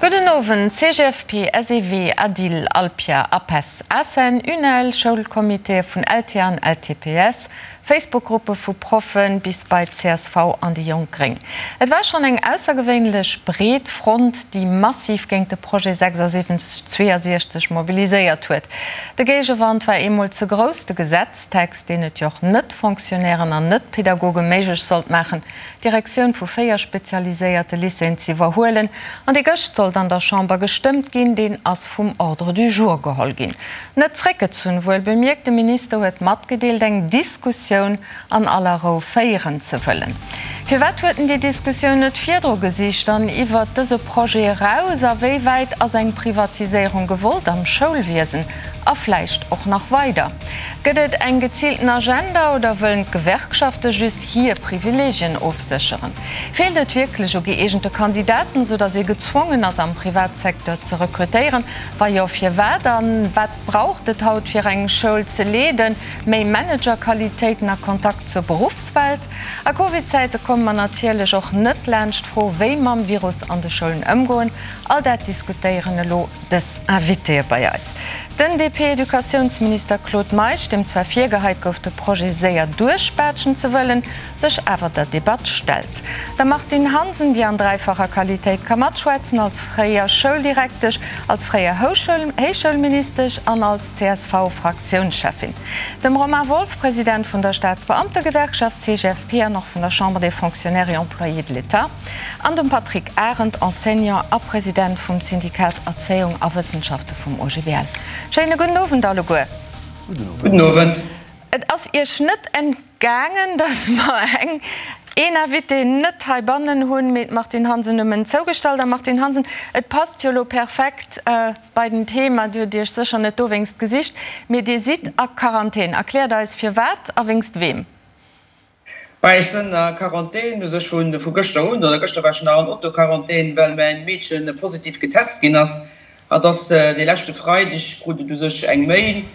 Gudden Owend, CGFP, SEW, ADIL, Alpia, APESS, ACEN, UNEL, Schoulcomitéë vun LTA an LTPS, Facebook-Gruppe vu Proffen bis bei csv an déi Jonk Gréng. Et war schonn eng aussergewéinlech breet Front, déi massiv géint de Projet 76 62 mobiliséiert huet. De Géigewand war eemol ze grouss, de Gesetztext, deen et jo och Net-Fonctionnairen an Net-Pedagoge méiglech sollt maachen, d'Direktioun vu 4 spezialiséierte Lycéeën ze iwwerhuelen, an dee gëscht sollt an der Chamber gestëmmt ginn, deen ass vum Ordre du jour geholl ginn. Net zréckgezunn, wuel bemierkt, de Minister huet matgedeelt, eng Diskussioun an aller Rou féieren ze wëllen. Firwat huet en déi Diskussioun net virdru gesicht an iwwert dëse Projet eraus? A wéi wäit ass eng Privatiséierung gewollt am Schoulwiesen a vläicht och nach weider? Gëtt et eng geziilten Agenda oder wëllen d'Gewerkschafte just hir Privileegien ofsécheren? Feelt et wierklech u gëeegente Kandidaten, sou datt ee gezwongen ass am Privatsecteur ze rekrutéieren? Wa jo, firwat? A wat braucht et haut fir eng Schoul ze leeden? Méi Managerqualitéiten a Kontakt zur Beruffswelt? A Covid-Zäite komme mer natierlech och net laanscht d'Fro, wéi mam Virus an de Schoulen ëmgoen. All dat diskutéieren elo dës Invitéë bei eis. Den DP-Educatiounsminister Claude Meisch, deem zwar virgeheit gouf, de Projet séier duerchbaatschen ze wëllen, sech awer der Debatt stellt. Der Martine Hansen, déi an dräifacher Qualitéit ka matschwätzen, als fréier Schouldirektesch, als fréier Héichschoulministesch an als CSV-Fraktiounscheffin. Dem Romain Wolff, President vun der Staatsbeamtegewerkschaft CGFP an och vun der Chambre des Fonctionnaires et Employés de l'État. An dem Patrick Arendt, Enseignant a President vum Syndikat Erzéiung a Wëssenschafte vum OGBL. Schéine gudden Owend alleguer. Gudden Owend. Et ass Iech net entgaangen, dass mer eng, een Invité net heibannen hunn, mee d'Martine Hansen nëmmen zougestallt. A Martine Hansen, et passt jo elo perfekt bei den Thema, Dir hutt Iech sécher net dowéinst gesicht, mee Dir sidd a Quarantän. Erkläert eis firwat a wéinst weem. Bah, ech sënn a Quarantän, u sech vu gëschter un, oder gëschter war ech nach an Autoquarantän, well mäin Meedchen positiv getest ginn ass. Hatt ass dee leschte Freideg, krut et u sech eng Mail,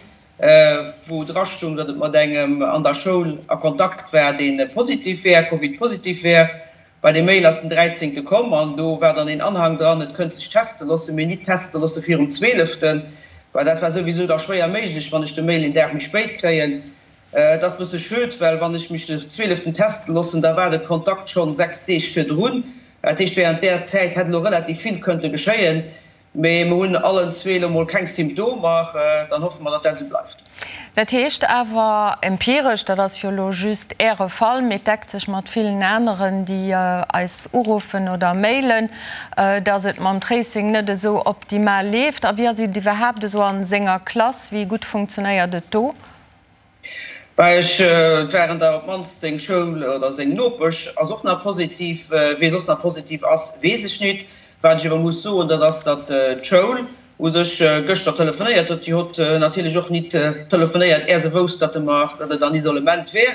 wou dra stung, datt et mat engem an der Schoul a Kontakt war, dee positiv wär, Covid-positiv wär. Bah, déi Mail ass den dräizéngte komm an do war dann een Anhang dran, et kënnt sech teste loossen, mee nit teste loosse virum zweeleften. Bah, dat war souwisou da schwéier méiglech, wann ech de Mail een Dag méi spéit kréien. Et ass bësse schued, well wann ech mech de zwieleften teste loossen, da war de Kontakt schonn 6 Deeg virdrun. Dat heescht, während där Zäit hätt elo relativ vill kënnte geschéien. Mee mer hunn allen zwee elo mol keng Symptomer. Dann hoffe mer, datt dat esou bleift. Dat heescht awer empiresch, dat ass jo elo just Äre Fall, mee et deckt sech mat villen aneren, déi eis uruffen oder mailen, datt et mam Tracing net esou optimal leeft. A wéi ass et iwwerhaapt esou a senger Klass? Wéi gutt funktionéiert et do? Bah, ech, et waren der op d'mannst seng Schoul oder seng Nopesch ass och nach positiv. Wee soss nach positiv ass, weess ech nit. Wat ech awer muss soen, dat ass, datt d'Schoul u sech gëschter telefonéiert huet. Déi hott natierlech och nit telefonéiert, är se wousst, datt e mer, datt et an Isolement wär.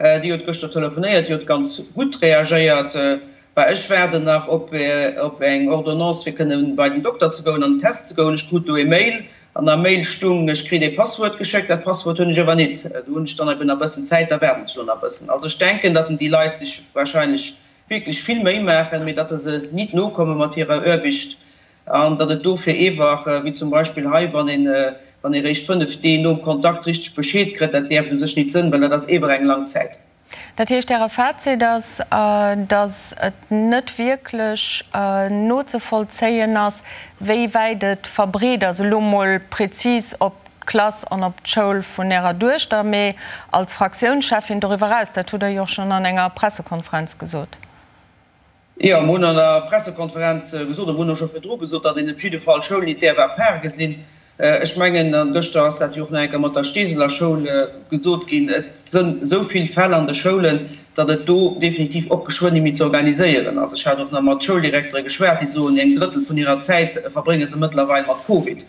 Déi huet gëschter telefonéiert, déi huet ganz gutt reagéiert. Bah, ech waarden nach op eng Ordonnance fir kënne bei den Dokter ze goen an den Test ze goen. Ech krut do e Mail an am Mail stung, ech kritt ee Passwuert geschéckt. Dat Passwuert hunn ech awer nit. Do hunn ech dann eben nach bëssen Zäit, da waarden ech elo nach bëssen. Also ech denken, datt déi Leit sech wahrscheinlech wierklech vill Méi maachen, mee datt se nit nokomme mat hirer Aarbicht an datt et dofir eewach, wéi zum Beispill hei, wann een, wann ee réischt 5 Dee nom Kontakt richteg Bescheed kritt, dat däerft u sech nit sënn, well dat ass ewer eng lang Zäit. Dat heescht, Äre Fazit ass, datt et net wierklech nozevollzéien ass, wéi wäit et verbreet ass, elo mol prezis op d'Klass an op d'Schoul vun Ärer Duechter, mee als Fraktiounscheffin doriwwer eraus. Dat hutt Der jo och schonn an enger Pressekonferenz gesot. Jo, mer hunn an der Pressekonferenz gesot, a mer hunn och scho virdru gesot, datt een op jidde Fall d'Schoul nit däerf à part gesinn. Ech mengen, a gëschter ass dat jo och nach eng Kéier mat der Steeseler Schoul gesot ginn, et sënn esou vill Fäll an de Schoulen, datt et do definitiv och geschwënn ni méi ze organiséieren ass. Ech hat och nach mat Schouldirektere geschwat, déi soen, eng Drëttel vun hirer Zäit verbrénge se mëttlerweil mat Covid.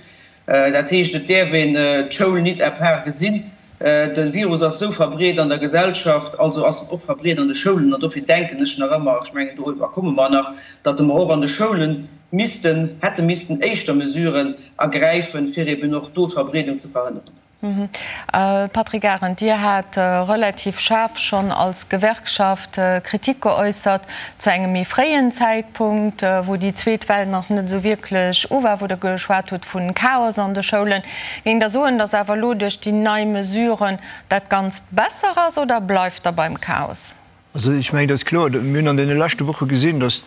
Dat heescht, et däerf een d'Schoul nit à part gesinn. De Virus ass esou verbreet an der Gesellschaft, also ass en och verbreet an de Schoulen. An dofir denken ech nach ëmmer, ech mengen, doriwwer komme mer nach, datt mer och an de Schoule missten, hätte missten éischter Mesuren ergräifen, fir eben och do d'Verbreedung ze verhënneren. Patrick Arendt, Dir hat relativ schaarf schonn als Gewerkschaft Kritik geäussert zu engem méi fréien Zäitpunkt, wou déi zweet Well nach net esou wierklech u war, wou Der geschwat hutt vu Chaos an de Schoulen. Géingt Der soen, datt awer elo duerch déi nei Mesuren dat Ganzt besser ass oder bleift Der beim Chaos? Also ech mengen, et ass kloer, mir hunn an deene leschte Woche gesinn, datt,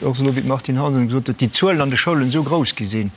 och elo wéi d'Martine Hansen gesot huet, déi Zuelen an de Schoulen esou grouss gi sinn,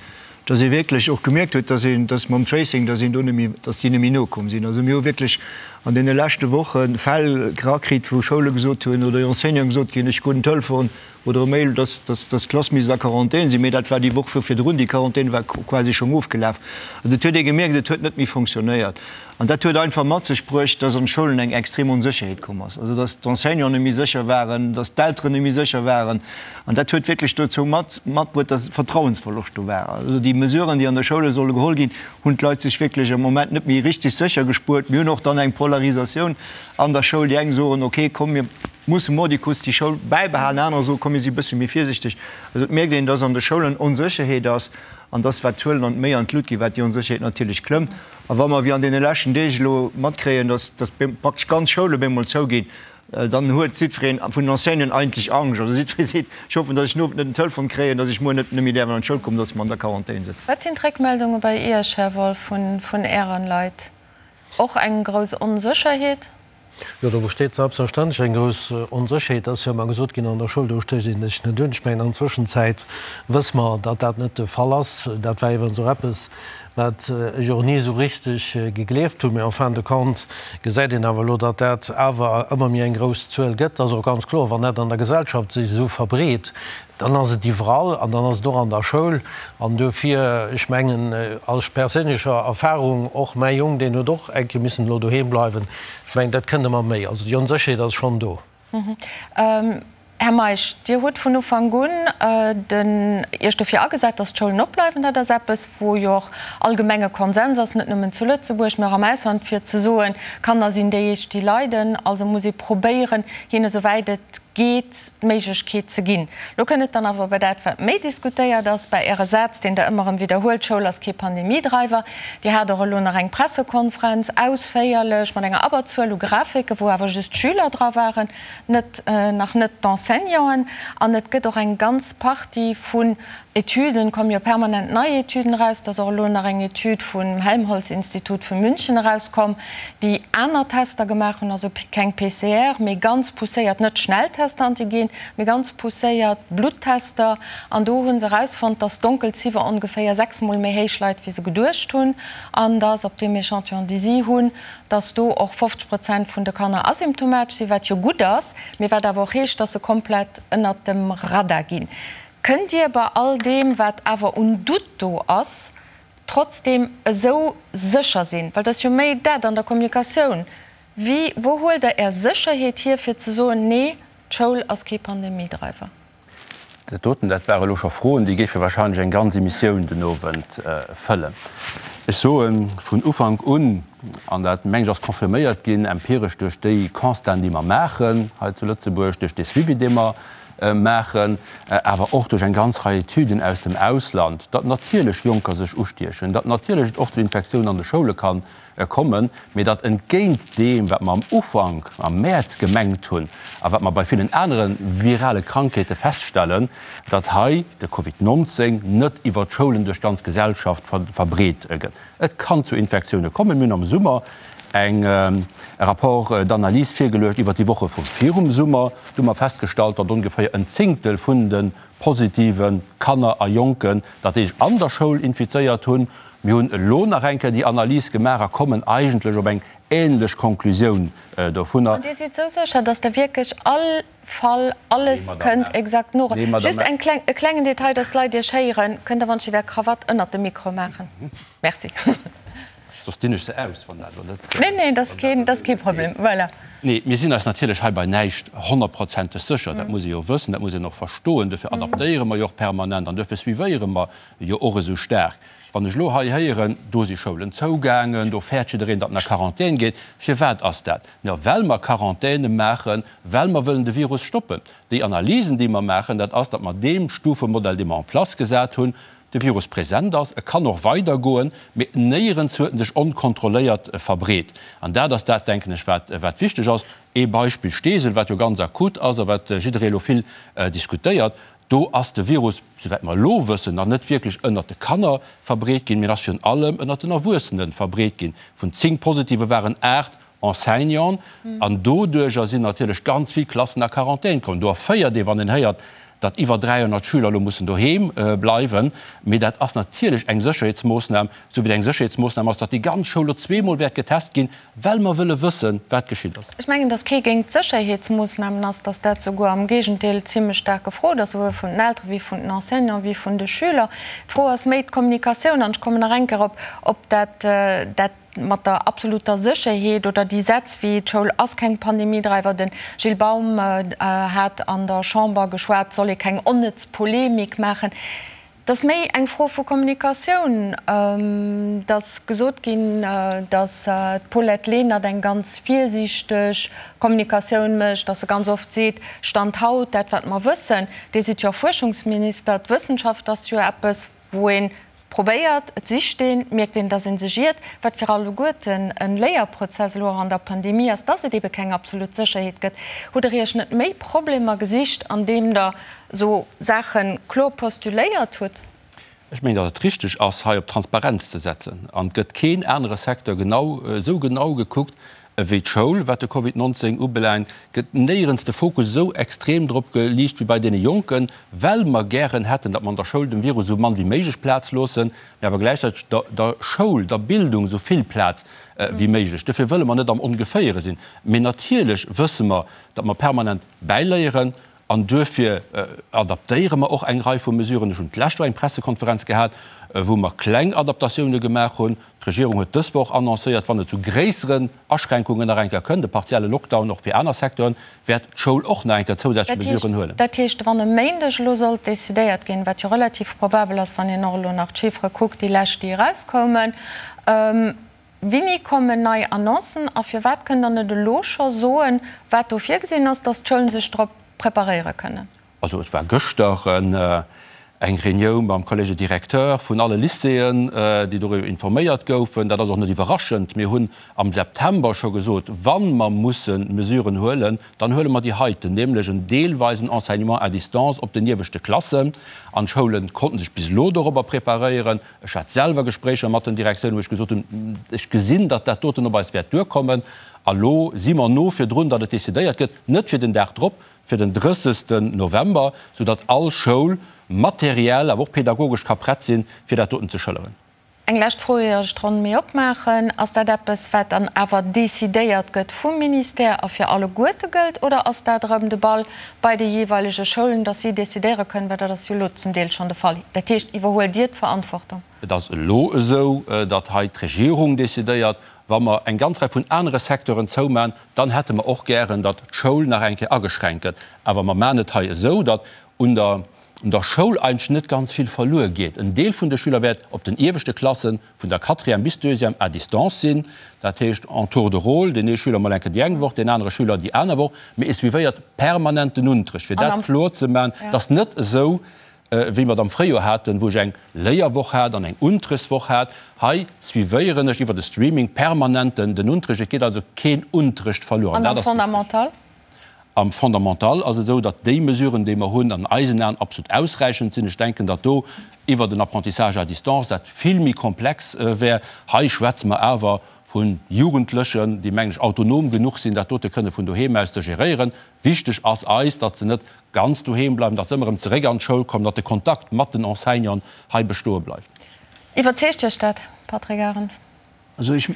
datt ee wierklech och gemierkt huet, datt een, datt mam Tracing, datt een do net méi, datt déi net méi nokomm sinn. Also mir hu wierklech an deene leschte Woche Fäll erakritt, wou Schoule gesot hunn oder Enseignanten gesot ginn, ech krut en Telefon oder e Mail, datt, datt, datt d'Klass misst a Quarantän sinn, mee dat war déi Woch vu virdrun, déi Quarantän war quasi schonn ofgelaf. Also et huet ee gemierkt, et huet net méi fonctionnéiert. An dat huet einfach mat sech bruecht, dass an d'Schoulen eng extrem Onsécherheet komm ass, also dass d'Enseignanten net méi sécher waren, dass d'Elteren net méi sécher waren. An dat huet wierklech dozou mat matbruet, dass Vertrauensverloscht do war. Also déi Mesuren, déi an de Schoule solle geholl ginn, hunn d'Leit sech wierklech am Moment net méi richtig sécher gespuert. Mir hunn och dann eng Polarisatioun an der Schoul. Déi eng soen, okay, komm mir musse mordicus déi Schoul bäibehalen, anerer soen, komm mir si e bësse méi virsichteg. Also et mierkt een, dass an de Schoulen Onsécherheet ass an dass, wat d'Zuelen an méi an d'Lut ginn, wat déi Onsécherheet natierlech klëmmt. A wa mer, wéi an deene leschten Deeg elo, matkréien, dass praktesch ganz Schoule bemol zouginn, dann huet jiddwereen vun den Enseignanten eigentlech Angscht. Also jiddweree seet, Ech hoffen, dass ech den Owend net en Telefon kréien, dass ech muer net méi däerf an d'Schoul kommen, dass mer an der Quarantän sëtzen. Wat sinn d'Réckmeldunge bei Iech, Här Wolff, vun Ären Leit? Och eng grouss Onsécherheet? Jo, do besteet selbstverständlech eng grouss Onsécherheet. Et ass jo ëmmer gesot ginn, an der Schoul, do stécht een sech net un. Ech mengen, an Zwëschenzäit wësse mer, datt dat net de Fall ass. Dat war iwwerens och eppes, wat ech och ni esou richteg gegleeft hunn. Mee en fin de compte gesäit een awer elo, datt dat awer ëmmer méi eng grouss Zuel gëtt. Et ass och ganz kloer, wann dat an der Gesellschaft sech esou verbreet, Dann ass et iwwerall an dann ass et och an der Schoul. An duerfir, ech mengen, aus perséinlecher Erfahrung, och mäi Jong, deen huet och eng Kéier missen elo doheem bleiwen, ech mengen, dat kënnt ëmmer méi. Also déi Onsécherheet ass schonn do. Här Meisch, Dir hutt vun Ufank un den Iech dofir agesat, datt d'Schoulen opbleiwen. Dat ass eppes, wou jo och allgemenge Konsens ass, net nëmmen zu Lëtzebuerg, mä och am Ausland, fir ze soen, Kanner sinn déi éischt, déi leiden. Also muss ee probéieren, hinne souwäit et geet, d'Méiglechkeet ze ginn. Lo kënnt et dann awer bei dat, wat méi diskutéiert ass, bei Äre Saz, deen Der ëmmer erëm widderhuelt, D'Schoul ass kee Pandemiedreiwer. Dir hat och elo nach eng Pressekonferenz, ausféierlech, mat enger Abberzuel u Grafiken, wou awer just d'Schüler dra waren, net, nach net d'Enseignanten. An et gëtt och eng ganz Partie vun Etüden, komme jo permanent nei Etüden eraus, et ass och elo nach eng Etüd vum Helmholtz-Institut vu München erauskomm, déi aner Tester gemaach hunn, also keng PCR, mee ganz pousséiert, net Schnelltester, Antigen, mee ganz pousséiert Bluttester. An do hu se erausfonnt, dass d'Donkelziffer ongeféier sechsmol méi héich leit, wéi se geduecht hunn, an dass op deem Echantillon, dee si hunn, dass do och 50 Prozent vun de Kanner asymptomatesch sinn, wat jo gutt ass, mee wat awer och heescht, dass se komplett ënnert dem Radar ginn. Kënnt Dir bei all deem, wat awer un Doute do ass, trotzdeem esou sécher sinn? Well et ass jo méi dat an der Kommunikatioun. Wéi, wou huelt Der Är Sécherheet hier, fir ze soen, Nee, d'Schoul ass kee Pandemiedreiwer? Dat doten, dat ware elo scho Froen, déi géife wahrscheinlech eng ganz Emissioun den Owend fëllen. Ech soe vun Ufank un, an dat, meng ech, ass confirméiert ginn empiresch duerch déi Constaten, déi mer maachen hei zu Lëtzebuerg, duerch dee Suivi, dee mer maachen, awer och duerch eng ganz Rei Etüden aus dem Ausland, datt natierlech Jonker sech ustiechen, datt natierlech et och zu Infektiounen an de Schoule ka kommen, mee datt entgéint deem, wat mer am Ufank, am Mäerz gemengt hunn a wat mer bei villen anere virale Krankheete feststellen, datt hei de Covid 19 net iwwer d'Schoulen duerch d'ganz Gesellschaft verbreet gëtt. Et kann zu Infektioune kommen. Mir hunn am Summer eng e Rapport d'analyse virgeluecht iwwert déi Woche vu virum Summer. Do hu mer festgestallt, datt ongeféier en Zéngtel vun de positive Kanner a Jonken dat déi sech an der Schoul infizéiert hunn. Mir hunn elo nach eng Kéier déi Analys gemaach a kommen eigentlech op eng änlech Konklusioun dovunner. An Dir sidd esou sécher, datt Der wierklech all Fall alles kënnt exakt no. Just eng kleng, e klengen Detail, dass d'Leit Iech héieren, Kënnt Der wann ech Är Krawatt ënnert dem Mikro maachen? Merci. Soss dinn ech se aus, wann dat elo net. Nee, nee, dat ass keen, dat ass kee Problem. Voilà. Nee, mir sinn eis natierlech hei bei näischt honnertprozenteg sécher. Dat muss ee jo wëssen, dat muss een och verstoen. Duerfir adaptéiere mer jo och permanent an duerfir suivéiere mer jo och esou staark. Wann ech elo hei héieren, do si Schoulen zougaangen, do fäert jiddereen, datt en a Quarantän geet, firwat ass dat? Jo, well mer Quarantäne maachen, well mer wëllen de Virus stoppen. Déi Analysen, déi mer maachen, dat ass, datt mer deem Stufemodell, dee mer en place gesat hunn, de Virus present ass, e kann och weidergoen, mee néierens huet en sech onkontrolléiert verbreet. An dat ass dat, denken ech, wat, wat wichteg ass. Ee Beispill Steesel, wat jo ganz akut ass a wat jidderee elo vill diskutéiert, Do ass de Virus, souwäit mer elo wëssen, nach net wierklech ënnert de Kanner verbreet ginn, mee en ass virun allem ënnert den Erwuessene verbreet ginn. Vun 10 Positive waren 8 Enseignanten an doduerjer sinn natierlech ganz vill Klassen a Quarantän komm. Do erféiert ee, wann een héiert, datt iwwer 300 Schüler elo mussen doheem bleiwen. Mee dat ass natierlech eng Sécherheetsmoossnam, esou wéi et eng Sécherheetsmoossnam ass, datt déi ganz Schoul elo zweemol wäert getest ginn, well mer wëlle wëssen, wat geschitt ass. Ech mengen, datt kee géint d'Sécherheetsmoossnamen ass, datt dat souguer am Géigendeel zimlech staark gefrot ass, souwuel vun den Eltere wéi vun den Enseignanten wéi vun de Schüler. D'Fro ass méi d'Kommunikatioun. An ech kommen nach eng Kéier op op dat dat mat der absoluter Sécherheet oder déi Sätz wéi d'Schoul ass keng Pandemiedreiwer. De Gilles Baum hat an der Chamber geschwat, et soll ee keng onnëtz Polemik maachen. Et ass méi eng Fro vu Kommunikatioun. Et ass gesot ginn, datt d'Paulette Lenert eng ganz virsiichteg Kommunikatioun mécht, datt se ganz oft seet, Stand haut, dat wat mer wëssen. Dir sidd jo och Fuerschungsminister. D'Wëssenschaft ass jo eppes, wou ee probéiert, et sicht een, mierkt een, datt ee sech iert, wat fir alleguerten e Léierprozess elo och an der Pandemie ass, datt et ebe keng absolut Sécherheet gëtt. Hutt Der Iech net méi Problemer gesicht, andeem Der esou Saache kloer postuléiert hutt? Ech mengen, datt et richteg ass, hei op Transparenz ze setzen. An et gëtt keen anere Secteur genau esou genau gekuckt ewéi d'Schoul, wat de Covid 19 ubelaangt. Gëtt néierens de Fokus esou extrem drop geliicht wéi bei deene Jonken, well mer gären hätten, datt mer an der Schoul dem Virus esou mann wéi méiglech Plaz loossen, mä awer gläichzäiteg der der Schoul, der Bildung esou vill Plaz wéi méiglech. Dofir wëlle mer net am Ongeféiere sinn. Mee natierlech wësse mer, datt mer permanent bäiléieren An duerfir adaptéiere mer och eng Rei vu Mesuren. Ech hunn d'lescht Woch eng Pressekonferenz gehat, wou mer kleng Adaptatioune gemaach hunn. D'Regierung huet dës Woch annoncéiert, wann et zu gréisseren Aschränkungen nach eng Kéier kënnt, e partielle Lockdown och fir aner Secteuren, wäert d'Schoul och nach eng Kéier zousätzlech Mesuren huelen. Dat heescht, wann e Méindeg elo sollt decidéiert ginn, wat jo relativ probabel ass, wann een och elo nach d'Chiffere kuckt, déi lescht, déi erauskoumen, Wéini kommen nei Annoncen a firwat kënnt Der net elo scho soen, wat do virgesinn ass, dass d'Schoulen sech drop preparéiere kënnen? Also et war gëschter eng Reunioun mam Collège des directeurs vun alle Lycéeën, déi doriwwer informéiert goufen. Dat ass och net iwwerraschend. Mir hunn am September scho gesot, wa mer musse Mesuren huelen, dann huele mer déi heiten, nämlech en deelweisen Enseignement à distance op den ieweschte Klassen. An d'Schoule konnten sech bis elo dorobber preparéieren. Ech hat selwer Gespréicher mat den Direktiounen, wou ech gesot hunn, ech gesinn, datt dat doten op eis wäert duerkommen. A lo si mer no virdrun, datt et decidéiert gëtt, net fir den Dag drop, fir den 30. November, soudatt all Schoul materiell, awer och pedagogesch ka prett sinn, fir dat doten ze schëlleren. Eng lescht Fro, ier ech d'Ronn méi opmaachen. Ass dat eppes, wat dann awer decidéiert gëtt vum Ministère a fir alleguerte gëllt, oder ass dat erëm de Ball bei de jeeweilege Schoulen, dass si decidéiere kënnen, well dat ass jo elo zum Deel schonn de Fall. Dat heescht, iwwerhuelt Dir d'Verantwortung? Et ass elo esou, datt hei d'Regierung decidéiert. Wa mer eng ganz Rei vun anere Secteuren zoumachen, dann hätte mer och gären, datt d'Schoul nach eng Kéier ageschränkt gëtt. Awer mer maachen et hei esou, datt un der un der Schoul eigentlech net ganz vill verluer geet. En Deel vun de Schüler wäert op den ieweschte Klassen, vun der Quatrième bis Deuxième, à distance sinn. Dat heescht en tour de rôle, deen ee Schüler mol eng Kéier déi eng Woch, deen anere Schüler déi aner Woch. Mee e suivéiert permanent den Unterrecht, fir dat kloer ze maachen. Et ass net esou, wéi mer et am Fréijoer haten, wou ech eng Léierwoch hat an eng Unterrechtswoch hat. Hei suivéieren ech iwwer de Streaming permanent den Unterrecht. Et geet also keen Unterrecht verluer. An am Fondamental? Am Fondamental ass et esou, datt déi Mesuren, déi mer hunn, an eisen Aen absolut ausräichend sinn. Ech denken, datt do iwwert en Apprentissage à distance dat vill méi komplex wär. Hei schwätze mer awer vu Jugendlechen, déi, mengen ech, autonom genuch sinn, dat dote kënne vun doheem aus ze geréieren. Wichteg ass eis, datt se net ganz doheem bleiwen, datt se ëmmer erëm zeréck an d'Schoul kommen, datt de Kontakt mat den Enseignanten hei bestoe bleift. Iwwerzeegt Iech dat, Patrick Arendt? Also ech,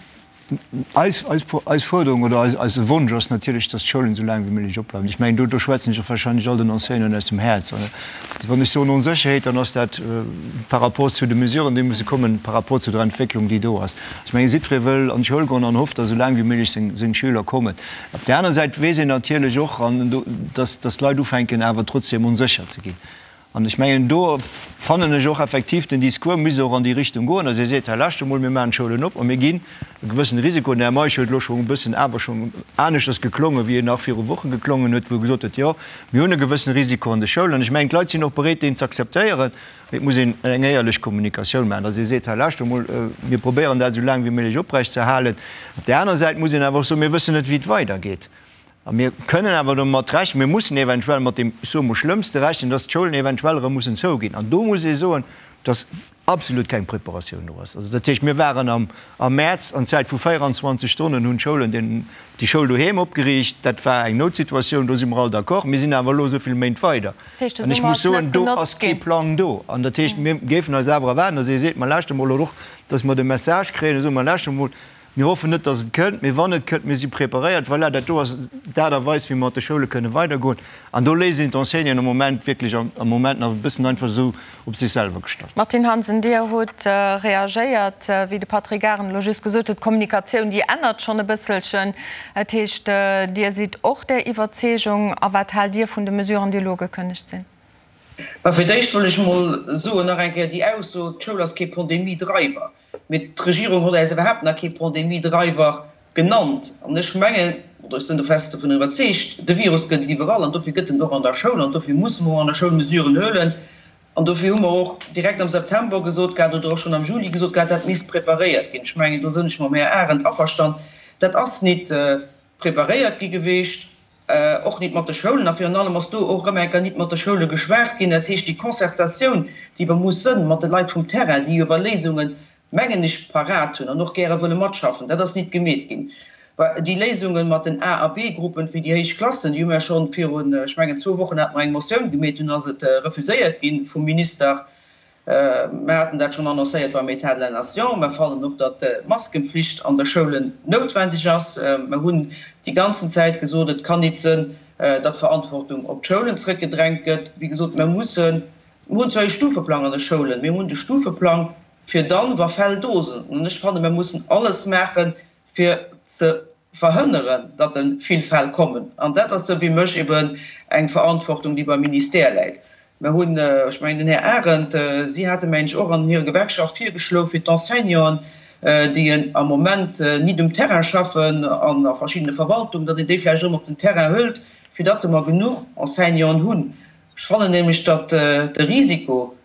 eis, eis, eis Fuerderung oder eis, eise Wonsch ass natierlech, dass d'Schoulen esou laang wéi méiglech opbleiwen. Ech mengen, do, do schwätzen ech och wahrscheinlech all den Enseignanten aus dem Häerz. Wann ech soen Onsécherheet, dann ass dat par rapport zu de Mesuren, déi musse kommen, par rapport zu der Entwécklung, déi do ass. Ech mengen, jiddweree wëll an d'Schoul goen an hofft, dass esou laang wéi méiglech seng, seng Schüler kommen. Op där aner Säit weess een natierlech och, an do, dass, dass d'Leit ufänken awer trotzdem onsécher ze ginn. An ech mengen, do fannen ech och effektiv, den Discours misst och an déi Richtung goen, dass ee seet, hei lauschtert emol, mir maachen d'Schoulen op a mir ginn e gewëssene Risiko. Den Här Meisch huet elo schonn e bëssen awer schonn aneschters geklongen, wéi en nach viru Woche geklongen huet, wou e gesot huet, jo, mir hunn e gewëssene Risiko an de Schoulen. An ech mengen, d'Leit sinn och bereet, deen ze akzeptéieren. Mee et muss een eng éierlech Kommunikatioun maachen, dass ee seet, hei lauschtert emol, mir probéieren dat esou laang wéi méiglech oprechtzeerhalen. Op där anerer Säit muss een awer och soen, mir wëssen net, wéi et weidergeet. A mir kënnen awer domat rechnen, mir mussen eventuell mat deem, ech soe mol, Schlëmmste rechnen, dass d'Schoulen eventuell erëm mussen zouginn. An do muss ee soen, dass absolut keng Preparatioun do ass. Also dat heescht, mir waren am am Mäerz, an Zäit vu 24 Stonnen hunn d'Schoulen den, déi Schoul doheem opgeriicht. Dat war eng Noutsituatioun, do si mer all d'accord. Mir sinn awer elo esou vill Méint weider. An ech muss soen, do ass kee Plang do. An dat heescht, mir géifen eis awer erwaarden, dass ee seet, Ma lauschtert emol, oder och, dass mer de Message kréien, da soe mer, Lauschtert emol, Mir hoffen net, dass et kënnt, mee wann et kënnt, mir si preparéiert. Voilà, dat do ass d'Aart a Weis, wéi mer mat de Schoule kënne weidergoen. An do léisst een d'Enseignanten am Moment wierklech am Moment nach e bëssen einfach esou op sech selwer gestallt. Martine Hansen, Dir hutt reagéiert, wéi de Patrick Arendt elo just gesot huet, d'Kommunikatioun, déi ännert schonn e bësselchen. Dat heescht, Dir sidd och där Iwwerzeegung. A wat haalt Dir vun de Mesuren, déi elo ugekënnegt sinn? Bah, fir d'éischt wëll ech emol soen, nach eng Kéier déi Ausso, d'Schoul ass kee Pandemie-Driver. Mee d'Regierung huet äis iwwerhaapt nach kee Pandemie-Driver genannt. An ech mengen, oder ech sinn do fest dovun iwwerzeegt, de Virus gëtt et iwwerall an dofir gëtt en och an der Schoul an dofir musse mer och an der Schoul Mesuren huelen. An dofir hu mer och direkt am September gesot gehat oder och schonn am Juli gesot gehat, dat misst preparéiert ginn. Ech mengen, do sinn ech mam Här Arendt averstan, dat ass nit preparéiert gi geweecht. Och nit mat de Schoulen, a virun allem ass do och erëm eng Kéier nit mat de Schoule geschwat ginn. Dat heescht, déi Concertatioun, déi iwwer muss sënn mat de Leit vum Terrain, déi iwwer Léisungen, mengen ech, parat hunn an och gäre wëlle matschaffen, dat ass nit gemeet ginn. Déi Léisunge mat den A a B-Gruppen fir déi héich Klassen, déi hu mer schonn virun, ech mengen, zwou Wochen hate mer eng Motioun gemeet, dunn ass et refuséiert gi vum Minister. Mer haten dat schonn annoncéiert beim État de la nation. Mer fannen och, datt d'Maskenpflicht an de Schoulen noutwendeg ass. Mer hunn déi ganzen Zäit gesot, et kann nit sënn, datt d'Verantwortung op d'Schoulen zrëckgedrängt gëtt. Wéi gesot, mer mussen, mer hunn zwar ee Stufeplang an de Schoulen, mee mer hunn de Stufeplang fir dann, wa Fäll do sinn. An ech fanne mer mussen alles maachen, fir ze verhënneren, datt e vill Fäll kommen. An dat ass, esou wéi mech, eben eng Verantwortung, déi beim Ministère läit. Mer hunn, ech mengen, den Här Arendt, si hate mengen ech och an hirer Gewerkschaft virgeschloen, fir d'Enseignanten, déi am Moment nit um Terrain schaffen an a verschiddene Verwaltungen, datt een déi vläicht erëm op den Terrain hëlt, fir datt mer genuch Enseignanten hunn. Ech fannen nämlech, datt de Risiko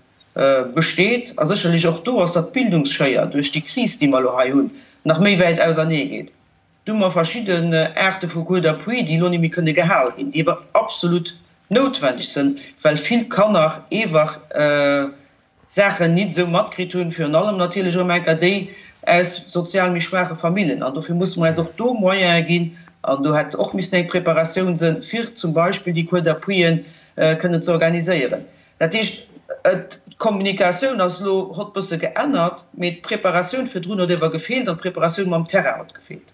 besteet a sécherlech och do ass, datt d'Bildungsschéier duerch déi Kris, déi mer elo hei hunn, nach méi wäit ausernee geet. Do hu mer verschidden Aarte vu Cours d'appui, déi elo net méi kënne gehal ginn, déi awer absolut noutwendeg sënn, well vill Kanner eewach Saachen nit esou matkritt hunn, virun allem natierlech erëm enker déi aus sozial méi schwaache Famillen. An dofir musse mer eis och do Moyene ginn, an do hätt och missen eng Preparatioun sënn, fir zum Beispill déi Cours d'appuien kënnen ze organiséieren. Dat heescht, d'Kommunikatioun ass elo hott bësse geännert, mee d'Preparatioun virdrun huet ewer gefeelt an d'Preparatioun mam Terrain huet gefeelt.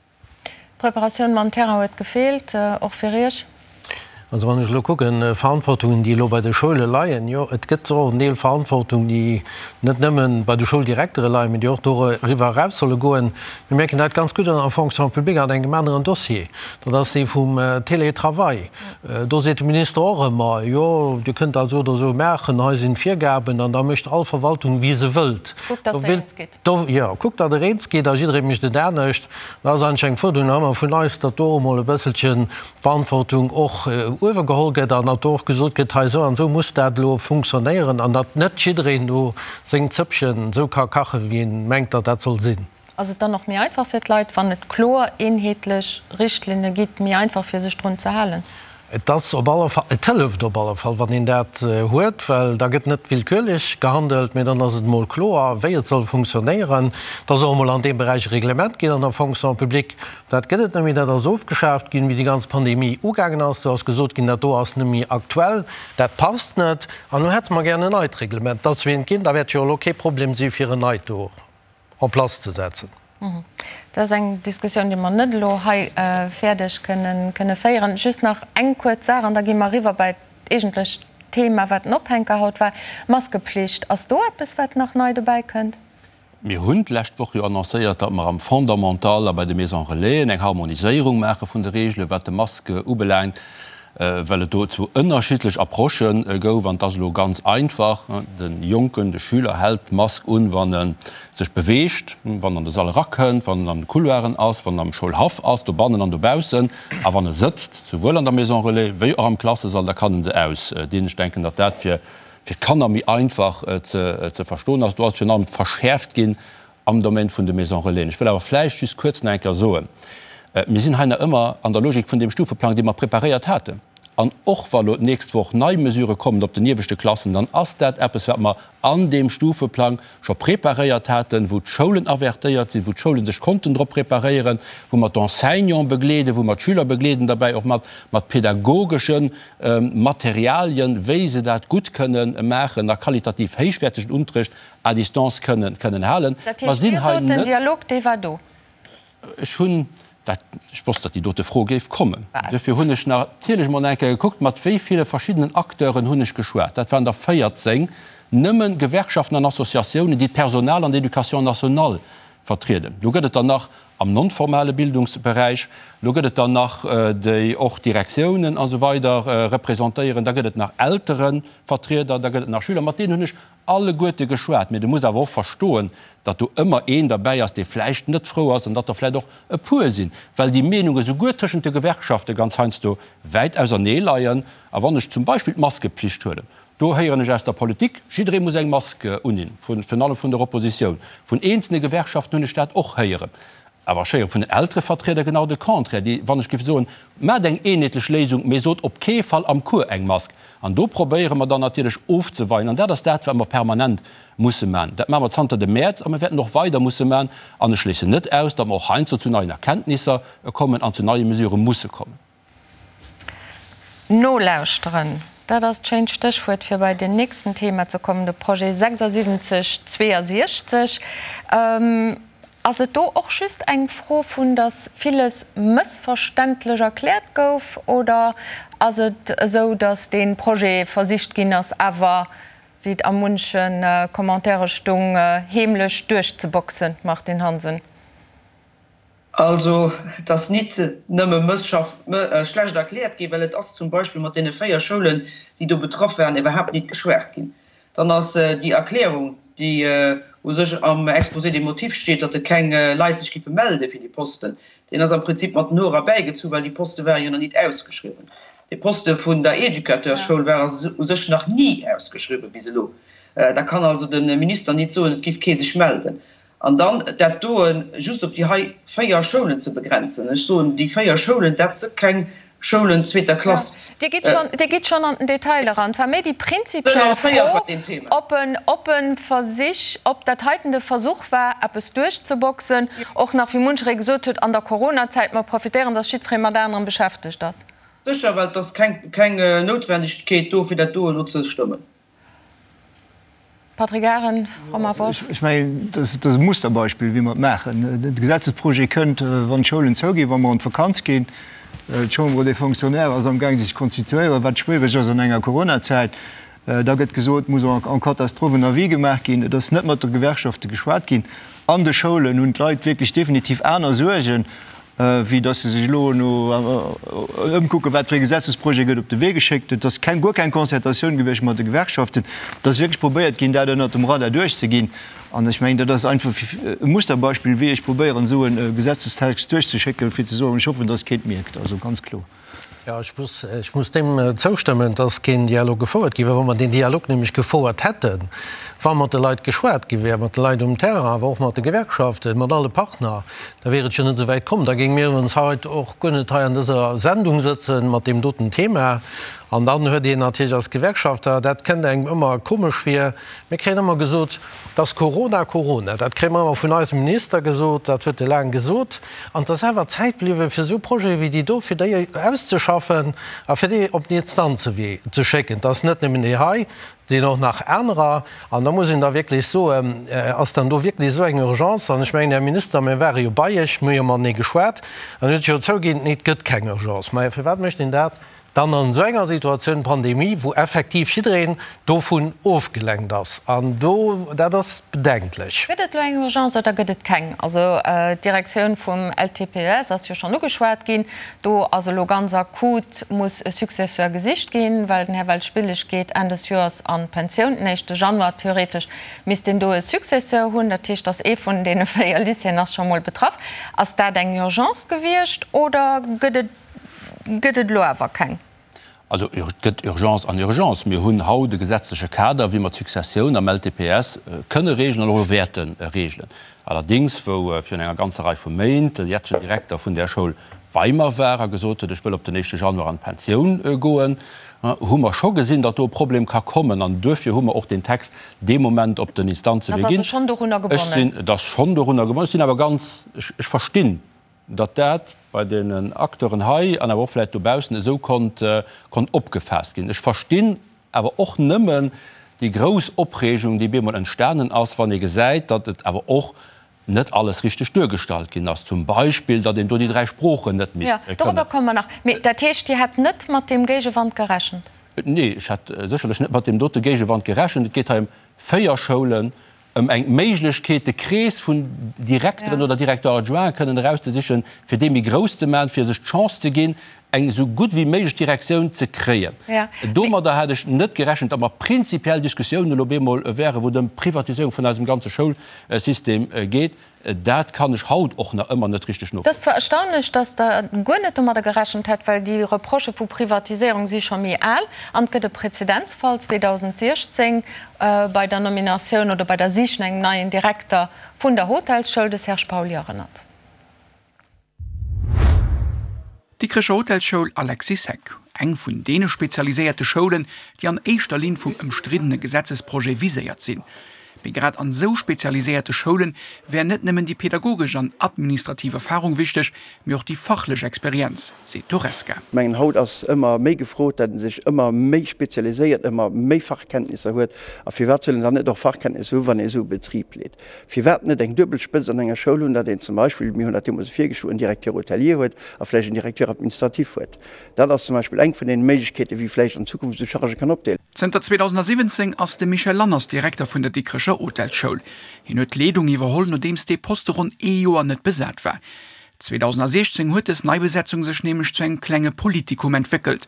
D'Preparatioun mam Terrain huet gefeelt, och fir Iech? Also wann ech elo kucken, Verantwortungen, déi elo bei de Schoule leien, jo, et gëtt och en Deel Verantwortung, déi net nëmme bei de Schouldirektere leien, mee déi och doriwwer eraus solle goen. Mir mierken dat ganz gutt an der Fonction publique an engem aneren Dossier, dat ass dee vum Télétravail. Do seet de Minister och ëmmer, jo, Dir kënnt dat esou oder esou maachen, hei sinn d'Virgaben, an da mécht all Verwaltung, wéi se wëllt. Kuckt, datt Der eens gitt. Jo, kuckt, datt Der eens gitt, a jidderee mécht et anescht. Dat ass eigentlech eng Fuerderung nach ëmmer vun eis, datt do och emol e bësselchen d'Verantwortung och uewe geholl gëtt an datt do och gesot gëtt, hei esou an esou muss dat elo funktionéieren, an datt net jiddereen do seng Zëppchen esou ka kachen, wéi en mengt, datt dat soll sinn. Ass et dann och méi einfach fir d'Leit, wann et kloer, eenheetlech Richtlinne gitt, méi einfach fir sech drun ze halen? Et ass op alle Fall, et hëlleft op alle Fall, wann een dat huet, well da gëtt net willkürlech gehandelt, mee dann ass et emol kloer, wéi et soll funktionéieren. Et ass och emol an deem Beräich e Reglement ginn an der Fonction publique. Dat gëtt et net méi, dat ass ofgeschaaft ginn, wéi déi ganz Pandemie ugaangen ass. Do ass gesot ginn, dat do ass net méi aktuell, dat passt net an elo hätte mer gären en neit Reglement. Et ass wéi eent ginn, da wäert jo elo kee Problem si fir en neit do en place ze setzen. Dat ass eng Diskussioun, déi mer net elo hei fäerdeg kënne féieren. Just nach eng kuerz Saach, an da gi mer eriwwer bei d'eegentlecht Thema, wat den Ophänker haut war, Maskepflicht. Ass do eppes, wat nach nei dobäi kënnt? Mir hunn d'lescht Woch jo annoncéiert, datt mer am Fondamental a bei de Maisons Relaisen eng Harmoniséierung maache vun de Reegelen, wat de Masque ubelaangt. well et do zwou ënnerschiddlech Approchë gouf. An et ass elo ganz einfach, De Jonken, de Schüler hält d'Mask un, wann e sech beweegt, wann en an de Sall erakënnt, wann en an de Couloiren ass, wann en am Schoulhaff ass, dobannen an dobaussen, a wann e sëtzt, souwuel an der Maison relais wéi och am Klassesall, da kann en se ausdinn. Ech denken, datt dat fir d'Kanner méi einfach ze verstoen ass. Do ass virun allem verschäerft ginn am Domaine vun de Maisons Relaisen. Ech wëll awer vläicht just kuerz nach eng Kéier soen, Mir sinn hei nach ëmmer an der Logik vun deem Stufeplang, dee mer preparéiert haten. An och wa lo d'nächst Woch nei Mesurë kommen op den ieweschte Klassen, dann ass dat eppes, wat mer an deem Stufeplang scho preparéiert haten, wou d'Schoulen avertéiert sinn, wou d'Schoule sech konnten drop preparéieren, wou mer d'Enseignante begleeden, wou mer d'Schüler begleeden derbäi, och mat mat pedagogesche Materialien, wéi se dat gutt kënnen maachen a qualitativ héichwäertegen Unterrecht à distance kënnen kënnen halen. Dat heescht, Dir sot, den Dialog, dee war do? Ech hunn dat, ech wosst, datt déi dote Fro géif kommen. Duerfir hunn ech natierlech emol eng Kéier gekuckt, mat wéi ville verschiddenen Acteuren hunn ech geschwat. Dat waren der 14, nëmme Gewerkschaften an Associatiounen, déi d'Personal an d'Éducation nationale vertrieden. Do gëtt et der nach am non-formale Bildungsberäich, do gëtt et der nach, déi och Direktiounen a sou weider representéieren, da gëtt et nach Elterevertrieder, da gëtt et nach Schüler. Mat deenen hunn ech alleguerte geschwat, mee de muss awer och verstoen, datt do ëmmer een derbäi ass, dee vläicht net frou ass an datt der vläicht och e puer sinn, well déi Meenunge souguer tëschent de Gewerkschafte ganz heiansdo wäit ausernee leien. A wann ech zum Beispill d'Maskepflicht huelen, do héieren ech aus der Politik, jidderee muss eng Mask unhinn, virun allem vun der Oppositioun. Vun eenzelne Gewerkschaften hunn ech dat och héieren. Awer ech héiere vun den Elterevertrieder genau de Contraire, déi, wann ech géif soen, Maacht eng eenheetlech Léisung, mee sot op kee Fall am Cours eng Mask. An do probéiere mer dann natierlech ofzeweien. An dat ass dat, wat mer permanent musse maachen. Dat maache mer zanter dem Mäerz a mir wäerten och weider musse maachen. An ech schléissen net aus, datt mer och heiansdo zu neien Erkenntnisser kommen an zu neie Mesurë musse kommen. Nolauschteren, dat ass d'schéint Stéchwuert fir bei den nächsten Thema ze kommen, de Projet 76 62. Ass et do och just eng Fro vun, datt villes mëssverständlech erkläert gouf, oder ass et esou, datt dee Projet versicht ginn ass, awer, wéi et a munche Commentaire stung, heemlech duerchzeboxen, Martine Hansen? Also, et ass nit nëmme schlecht erkläert ginn, well et ass zum Beispill mat deene 4 Schoulen, déi do betraff waren, iwwerhaapt nit geschwat ginn. Dann ass déi Erklärung, déi u sech am Exposé des motifs steet, datt et keng Leit sech giffe melde fir déi Posten, deen ass am Prinzip mat den Hoer erbäigezu, well déi Poste ware jo nach nit ausgeschriwwen. Dee Poste vun der Educateurschoul war u sech nach ni ausgeschriwwen bis elo. Da kann also de Minister nit soen, et giff kee sech melden. An dann dat doen just op déi hei 4 Schoulen ze begrenzen. Ech soen, déi 4 Schoulen, dat si keng Schoulen zweeter Klass. Dir gitt schonn, Dir gitt schonn an den Detail eran. Et war méi déi prinzipiell Fro, ob en, ob e Versich, ob dat heiten de Versuch war, eppes duerchzeboxen, och nach, wéi muncheree gesot huet, an der Coronazäit, mer profitéieren, dass jiddweree mat anerem beschäftegt ass. Sécher, well et ass keng, keng Noutwendegkeet do, fir dat do elo ze stëmmen. Patrick Arendt, Romain Wolff. Ech mengen, dat ass e Musterbeispill, wéi mer et maachen. De Gesetzesprojet kënnt, wann d'Schoulen zouginn, wa mer an d'Vakanz ginn. D'Chambre des Fonctionnaires ass amgaang sech ze konstituéieren, wat schwiereg ass an enger Coronazäit. Da gëtt gesot, et muss en catastrophe en avis gemaach ginn. Et ass net mat de Gewerkschafte geschwat ginn. An de Schoulen hunn d'Leit wierklech definitiv aner Suergen. wéi dass se sech elo no ëmkucken, wat fir ee Gesetzesprojet gëtt op de Wee geschéckt. Et ass keng, guer keng Concertatioun gewiescht mat de Gewerkschaften. Et ass wierklech probéiert ginn, dat ënnert dem Radar duerchzeginn. An ech mengen, dat ass einfach e Musterbeispill, wéi ech probéieren, esou e Gesetzestext duerchzeschécken, fir ze soen, ech hoffen, dass keen et mierkt. Also ganz kloer. Jo, ech muss, ech muss deem zoustëmmen, dass keen Dialog gefouert gi wär. Wa mer deen Dialog nämlech gefouert hätten, wa mat de Leit geschwat gi wär, mat de Leit um Terrain, awer och mat de Gewerkschaften, mat alle Partner, da wier et jo net esou wäit komm. Da géinge mir ons haut och guer net hei an dëser Sendung sëtzen mat deem doten Thema. An dann huet een natierlech als Gewerkschafter, dat kënnt engem ëmmer komesch vir, mir kréien ëmmer gesot, Dass Corona, Corona, dat kréie mer ëmmer vun eisem Minister gesot, dat huet e laang gesot. An et ass awer Zäit bliwwen, fir esou Projete wéi déi do, fir déi auszeschaffen a fir déi op den Instanzewee ze schécken. Et ass net nëmmen déi hei, et sinn och nach anerer. An da muss een da wierklech soen, Ass dann do wierklech esou eng Urgence? An ech mengen, Här Minister, mir ware jo bei Iech, mir hu jo matenee geschwat, an Dir hutt jo zouginn, nee, et gëtt keng Urgence. Majo, firwat mécht een dat? Dann an esou enger Situatioun, Pandemie, wou effektiv jiddereen dovun ofgelenkt ass. An do, dat ass bedenklech. Gëtt et elo eng Urgence oder gëtt et keng? Also d'Direktioun vum LTPES ass jo schonn ugeschwat ginn. Do ass elo ganz akut, muss e Successeur gesicht ginn, well den Här Welschbillig geet Enn des Joers an d'Pensioun, den éischte Januar. Theoretesch misst een do e Successeur hunn. Dat heescht, dass ee vun deene 4 Lycéeën ass scho mol betraff. Ass dat eng Urgence gewiescht oder gëtt et Gëtt et elo awer keng. Also et gëtt Urgence an Urgence. Mir hunn haut e gesetzleche Kader, wéi mer d'Successioun am LTPS kënne reegelen an och elo wäerte reegelen. Allerdéngs, wou virun enger ganzer Rei vu Méint de jetzegen Direkter vun där Schoul bei mer war a gesot huet, ech wëll op den éischte Januar an d'Pensioun goen, hu mer scho gesinn, datt do e Problem ka kommen. An duerfir hu mer och deen Text dee Moment op den Instanzewee ginn. Ech sinn, et ass schonn dorunner gebonnen. Ech sinn awer ganz, ech verstinn datt dat bei den Acteuren hei an awer och vläicht dobaussen esou konnt konnt opgefaasst ginn. Ech verstinn awer och nëmmen déi grouss Opreegung, déi bemol entstanen ass, wann ee gesäit, datt et awer och net alles richteg duergestallt ginn ass, zum Beispill, datt een do déi 3 Sproochen net misst kënnen. Jo, dorobber komme mer nach. Mee dat heescht, Dir hätt net mat deem Géigewand gerechent? Nee, ech hätt sécherlech net mat deem dote Géigewand gerechent. Et geet hei ëm 4 Schoulen, ëm eng Méiglechkeet, de Krees vun Direkteren oder Directeur-adjointen kënnen erauszesichen, fir dee méi grouss ze maachen, fir sech d'Chance ze ginn, eng esou gutt wéi méiglech Direktioun ze kréien. Domadder hat ech net gerechent, datt mer prinzipiell Diskussiounen elo op eemol wären, wou et ëm d'Privatiséierung vun eisem ganze Schoulsystem geet. Dat kann ech haut och nach ëmmer net richteg Et ass zwar erstaunlech, datt Der guer net domadder gerechent hätt, well déi Reprochë vu Privatiséierung si scho méi al an et gëtt e Prezedenzfall 2016 bei der Nominatioun oder bei der Sich no engem neien Direkter vun der Hotelsschoul, de Serge Pauly erënnert. D'Dikrecher Hotelsschoul Alexis Heck, eng vun deene spezialiséierte Schoulen, déi an éischter Linn vum ëmstriddene Gesetzesprojet viséiert sinn. Mee grad an esou spezialiséierte Schoule wär net nëmmen déi pedagogesch an administrativ Erfarung wichteg, mee och déi fachlech Experienz, seet d'Horesca. Ech mengen, haut ass ëmmer méi gefrot, datt ee sech ëmmer méi spezialiséiert, ëmmer méi Fachkenntnisser huet. A firwat soll een dann net och Fachkenntnisser hu wann ee esou e Betrib leet? Firwat net eng duebel Spëtzt an enger Schoul hunn, datt een zum Beispill, mir hunn dat deemools virgeschloen, en Directeur hôtelier huet a vläicht en Directeur administratif huet. Dat ass zum Beispill eng vun deene Méiglechkeeten, wéi vläicht an Zukunft esou Chargë kann opdeelen. Zënter 2017 ass de Michel Lanners Direkter vun der Dikrecher Hotelsschoul. Hien huet d'Leedung iwwerholl, nodeems dee Poste ronn ee Joer net besat war. 2016 huet dës Neibesetzung sech nämlech zu engem klenge Politikum entwéckelt.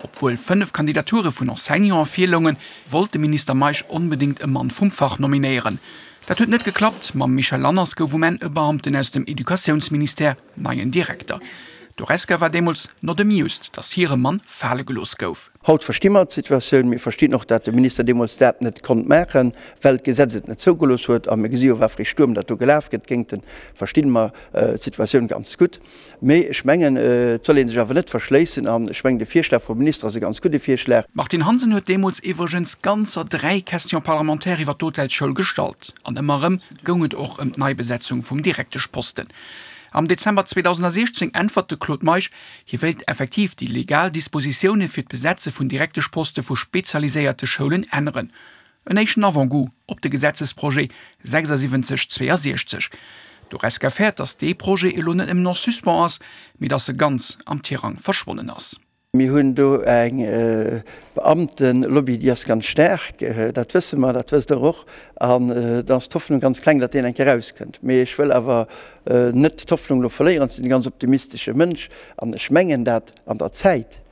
Obwuel 5 Kandidature vun Enseignanten virloungen, wollt de Minister Meisch onbedéngt e Mann vum Fach nominéieren. Dat huet net geklappt, mam Michel Lanners gouf um Enn e Beamten aus dem Educatiounsministère neien Direkter. D'Horesca war deemools not amused, datt hire Mann fale gelooss gouf. Haut versti mer d'Situatioun. Mir verstinn och, dat de Minister deemools dat net konnt maachen, well d'Gesetz et net zougelooss huet. A mir gesi jo, wat fir ee Stuerm dat do gelaf gëtt géint en. Verstinn mer d'Situatioun ganz gutt. Mee ech mengen, et soll ee sech awer net verschléissen. An ech mengen, de Virschlag vum Minister ass e ganz gudde Virschlag. D'Martine Hansen huet deemools iwwregens ganzer 3 Questions parlementaires iwwer d'Hotelsschoul gestallt. An ëmmer erëm goung et och ëm d'Neibesetzung vum Direkteschposten. Am Dezember 2016 äntwert de Claude Meisch, Hie wéilt effektiv déi legal Dispositioune fir d'Besetze vun Direkteschposte vu spezialiséierte Schoulen änneren. En éischten Avant-goût op de Gesetzesprojet 76 62. D'Horesca fäert, datt dee Projet elo net nëmmen en suspens ass, mee datt e ganz am Tirang verschwonnen ass. Mir hunn do eng Beamtenlobby, déi ass ganz staark, dat wësse mer, dat wësst Der och. An da ass d'Hoffnung ganz kleng, datt deen eng Kéier erauskënnt. Mee ech wëll awer net d'Hoffnung elo verléieren. Ech sinn e ganz optimistesche Mënsch an ech mengen dat an der Zäit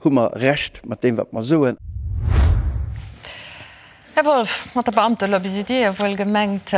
hu mer Recht mat deem, wat mer soen. Här Wolff, mat der Beamtelobby sidd Dir jo wuel gemengt.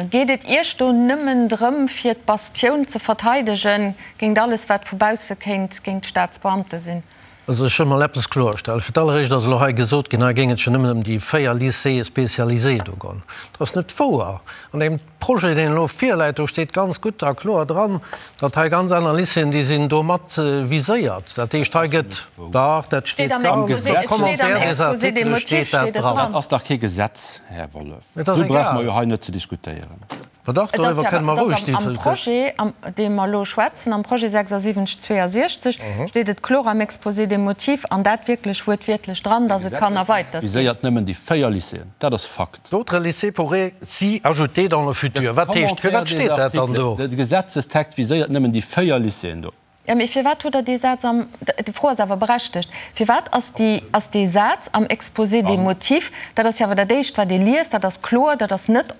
Geet et Iech do nëmmen drëm, fir d'Bastioun ze verteidegen géint alles, wat vu bausse kéint géint d'Staatsbeamte sinn? Also ech wëll mol eppes kloerstellen. Fir d'alleréischt ass elo hei gesot ginn, hei géing et jo nëmmen ëm déi 4 Lycées spécialisés do goen. Dat ass net wouer. An deem Projet, deen elo virläit, do steet ganz gutt a kloer dran, datt hei ganz aner Lycéeën, déi sinn do mat viséiert. Dat heescht, hei gëtt, dach, dat steet ganz am Commentaire des articles steet dat dran. Dat ass dach kee Gesetz, Här Wollef. Esou brauche mer jo hei net ze diskutéieren. Ma dach, doriwwer kënne mer roueg diskutéieren. Am Projet, am deem mer elo schwätzen, am Projet 76 62, steet et kloer am Exposé des motifs, an dat wierklech wuertwiertlech dran, dass et kann erweitert ginn. Viséiert nëmmen déi 4 Lycéeën. Dat ass Fakt. D'autres lycées pourraient s'y ajouter dans le futur. Wat heescht, firwat steet dat dann do? De Gesetzestext viséiert nëmmen déi 4 Lycéeën do. Jo, mee firwat hutt Der dee Saz am, d'Fro ass awer berechtegt, firwat ass déi, ass dee Saz am Exposé des motifs, dat ass jo awer dat Éischt, wat ee liest, dat ass kloer, dat ass net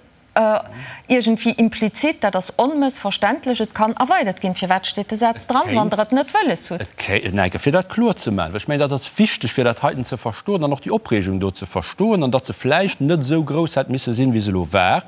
iergendwéi implizit, dat ass onmëssverständlech, et kann erweidert ginn. Firwat steet de Saz dran, wann Der et net wëlles hutt? Et kéint, enke fir dat kloer ze maachen, well ech mengen, dat ass wichteg, fir dat heiten ze verstoen an och déi Opreegung do ze verstoen an datt se vläicht net esou grouss hätt misse sinn, wéi se elo war.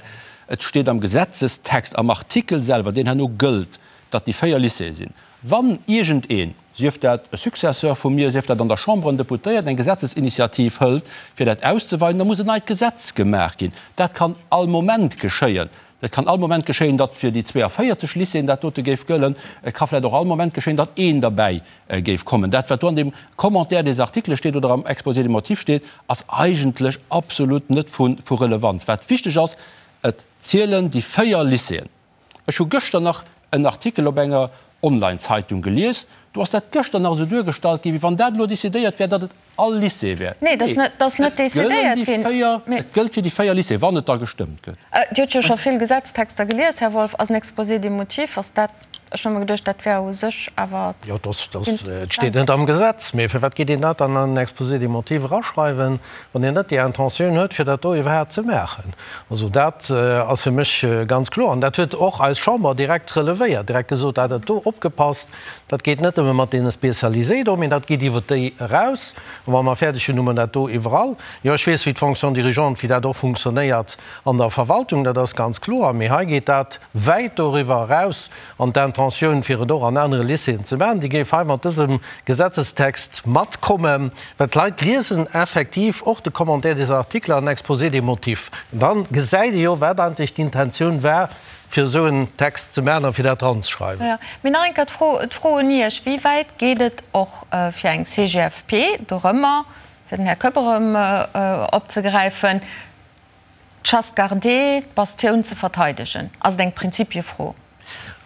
Et steet am Gesetzestext, am Artikel selwer, deen herno gëllt, datt déi 4 Lycéeë sinn. Wann iergendeen, sief dat e Successeur vu mir, sief dat an der Chamber en Deputéierten, eng Gesetzesinitiativ hëlt, fir dat auszeweiden, da muss en neit Gesetz gemaach ginn. Dat kann all Moment geschéien. Et kann all Moment geschéien, datt fir déi 42 Lycéeën dat dote géif gëllen. Et ka vläicht och all Moment geschéien, datt een derbäi géif kommen. Dat, wat do an deem Commentaire des articles steet oder am Exposé des motifs steet, ass eigentlech absolut net vu Relevanz. Wat wichteg ass, Et zielen déi 4 Lycéeën. Ech hu gëschter nach en Artikel op enger Online-Zeitung gelies, do ass dat gëschter nach esou duergestallt ginn, wéi wann dat elo decidéiert wär, datt et all Lycée wär. Nee, et ass net decidéiert ginn. Et gëllt fir déi 4 Lycéeën, wann et da gestëmmt gëtt. Dir hutt jo scho vill Gesetztexter gelies, Här Wolff. Ass en Exposé des motifs, ass dat, ech hu mer geduecht, dat wär u sech awer. Jo, et steet net am Gesetz, mee firwat geet een dat dann an en Exposé des motifs eraschreiwen? Wann een net déi Intentioun huet, fir dat do iwwerhaapt ze maachen. Also dat ass fir mech ganz kloer. An dat huet och eis Chamber direkt relevéiert, direkt gesot, dat dat do, opgepasst, dat geet net nëmme mat deene Spécialisés do, mee dat geet iwwert déi eraus. A wa mer fäerdeg hunn, hu mer dat do iwwerall. Jo, ech weess, wéi d'Fonction dirigeante, wéi dat och funktionéiert an der Verwaltung, dat ass ganz kloer. Mee hei geet dat wäit doriwwer eraus. An d'Intentioun, fir et och an anere Lycéeën ze maachen, déi géif hei mat dësem Gesetzestext matkommen, well d'Leit liesen effektiv och de Commentaire des articles an Exposé des motifs. An da gesäit ee jo, wat eigentlech d'Intentioun war, fir esou en Text ze maachen a fir dat dranzeschreiwen. Jo, mee nach eng Kéier d'Fro, d'Fro un Iech, Wéi wäit geet et och fir eng CGFP dorëmmer, fir den Här Koepp erëm opzegräifen, D'Chasse gardée, d'Bastioun ze verteidegen, ass et eng Prinzipiefro.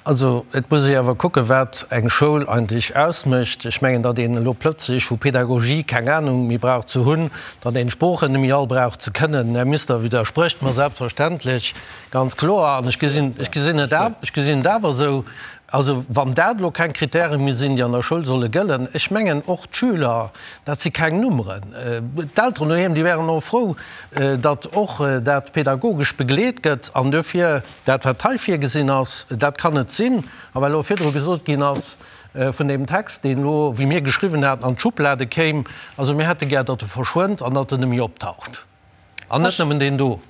Also et muss ee awer kucken, wat eng Schoul eigentlech ausmécht. Ech mengen, datt een elo plötzlech vu Pedagogie keng Anung méi brauch ze hunn, datt een d'Sproochen net méi all brauch ze kënnen. Här Minister widdersprécht mer selbstverständlech, ganz kloer. An ech gesinn, ech gesinn et awer, ech gesinn et awer esou, also wann dat elo keng Kritäre méi sinn, déi an der Schoul solle gëllen, ech mengen och d'Schüler, dat si keng Nummeren. D'Elteren doheem, déi wären och frou, datt och dat pedagogesch begleet gëtt an duerfir dat, wat hei virgesinn ass, dat kann et sinn. A well elo virdru gesot ginn ass vun deem Text, deen elo, wéi mir geschriwwen haten, an d'Schublade kéim, also mir hätte gär, datt e verschwënnt an datt en net méi optaucht. An net nëmmen deen do.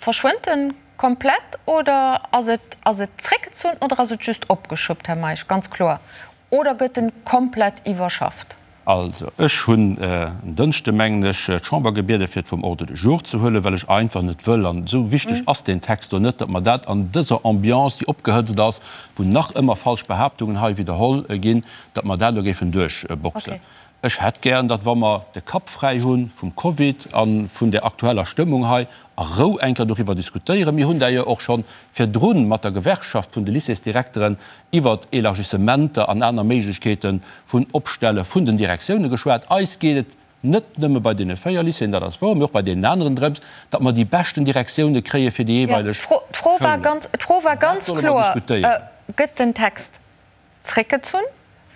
Verschwënnt en komplett oder ass et, ass et zréckgezunn oder ass et just opgeschuppt, Här Meisch, ganz kloer? Oder gëtt en komplett iwwerschafft? Also, ech hunn en Dënschde, mengen ech, d'Chamber gebieden, fir et vum Ordre du jour ze huelen, well ech einfach net wëll, an esou wichteg ass deen Text do net, datt mer dat an dëser Ambiance, déi opgehëtzt ass, wou nach ëmmer falsch Behaaptungen hei widderholl ginn, datt mer dat elo géifen duerchboxen. Ech hätt gären, datt, wa mer de Kapp fräi hu vum Covid a vun där aktueller Stëmmung hei, a Rou eng Kéier doriwwer diskutéieren. Mir hunn d'ailleurs och scho virdru mat der Gewerkschaft vun de Lycéesdirekteren iwwert Elargissementer an aner Méiglechkeete vun Opstelle vun den Direktioune geschwat. Eis geet et net nëmme bei deene 4 Lycéeën, dat ass wouer, mee och bei deenen aneren drëms, datt mer déi beschten Direktioune kréie fir déi jeeweileg Schoulen. D'Fro war ganz kloer, Gëtt den Text zréckgezunn?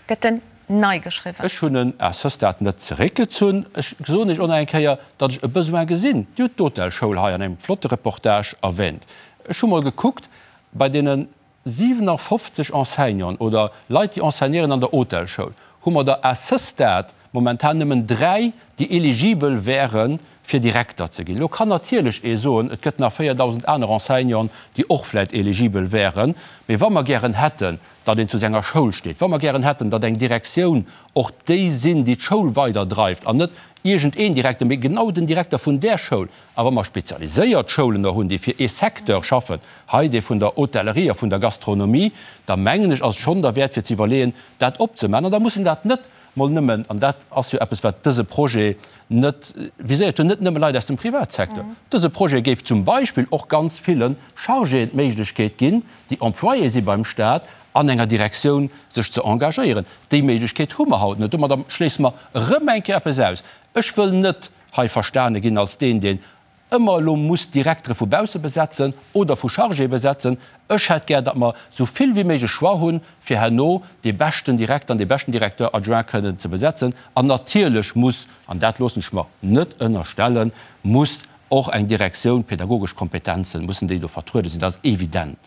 Gëtt en nei geschriwwen? Ech hunn en à ce stade net zeréckgezunn. Ech soen Iech och nach eng Kéier, datt ech e Besoin gesinn. Dir hutt d'Hotelschoul hei an engem flotte Reportage erwähnt. Ech hu mol gekuckt, bei deene 57 Enseignanten oder Leit, déi enseignéieren an der Hotelschoul, hu mer der à ce stade momentan nëmmen 3, déi eligibel wären, fir Direkter ze ginn. Elo kann natierlech ee soen, et gëtt nach 4.000 aner Enseignanten, déi och vläicht eligibel wären. Mee wa mer gären hätten, datt een zu senger Schoul steet, wa mer gären hätten, datt eng Direktioun och déi sinn, déi d'Schoul weiderdreift an net iergendeen Direkter, mee genau den Direkter vun där Schoul, A wa mer spezialiséiert Schoulen och hunn, déi fir ee Secteur schaffen, hei dee vun der Hotellerie a vun der Gastronomie, da mengen ech, ass et schonn derwäert fir ze iwwerleeën, dat opzemaachen. An da muss een dat net mol nëmmen, an dat ass jo eppes, wat dëse Projet net viséiert huet, net nëmme Leit aus dem Privatsecteur. Dëse Projet géif zum Beispill och ganz ville Chargéen d'Méiglechkeet ginn, déi Employé si beim Stat, an enger Direktioun sech ze engagéieren. Déi Méiglechkeet hu mer haut net. Domadder schléisse mer erëm eng Kéier eppes aus. Ech wëll net hei verstane ginn als deen, deen. ëmmer elo muss Direktere vu bausse besetzen oder vu Chargéë besetzen. Ech hätt gär, datt mer esou vill wéi méiglech Choix hunn, fir herno dee beschten Direkter an dee beschten Directeur adjoint kënnen ze besetzen. An natierlech muss, an dat loossen ech mer net ënnerstellen, muss och eng Direktioun, pädagogesch Kompetenzen, mussen déi do vertruede sinn. Dat ass evident.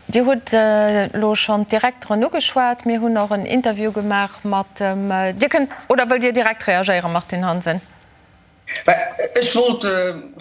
Dir hutt elo schonn d'Direkteren ugeschwat. Mir hunn och en Interview gemaach mat dem. Dir kënnt, oder wëllt Dir direkt reagéieren, Martine Hansen? Ech wollt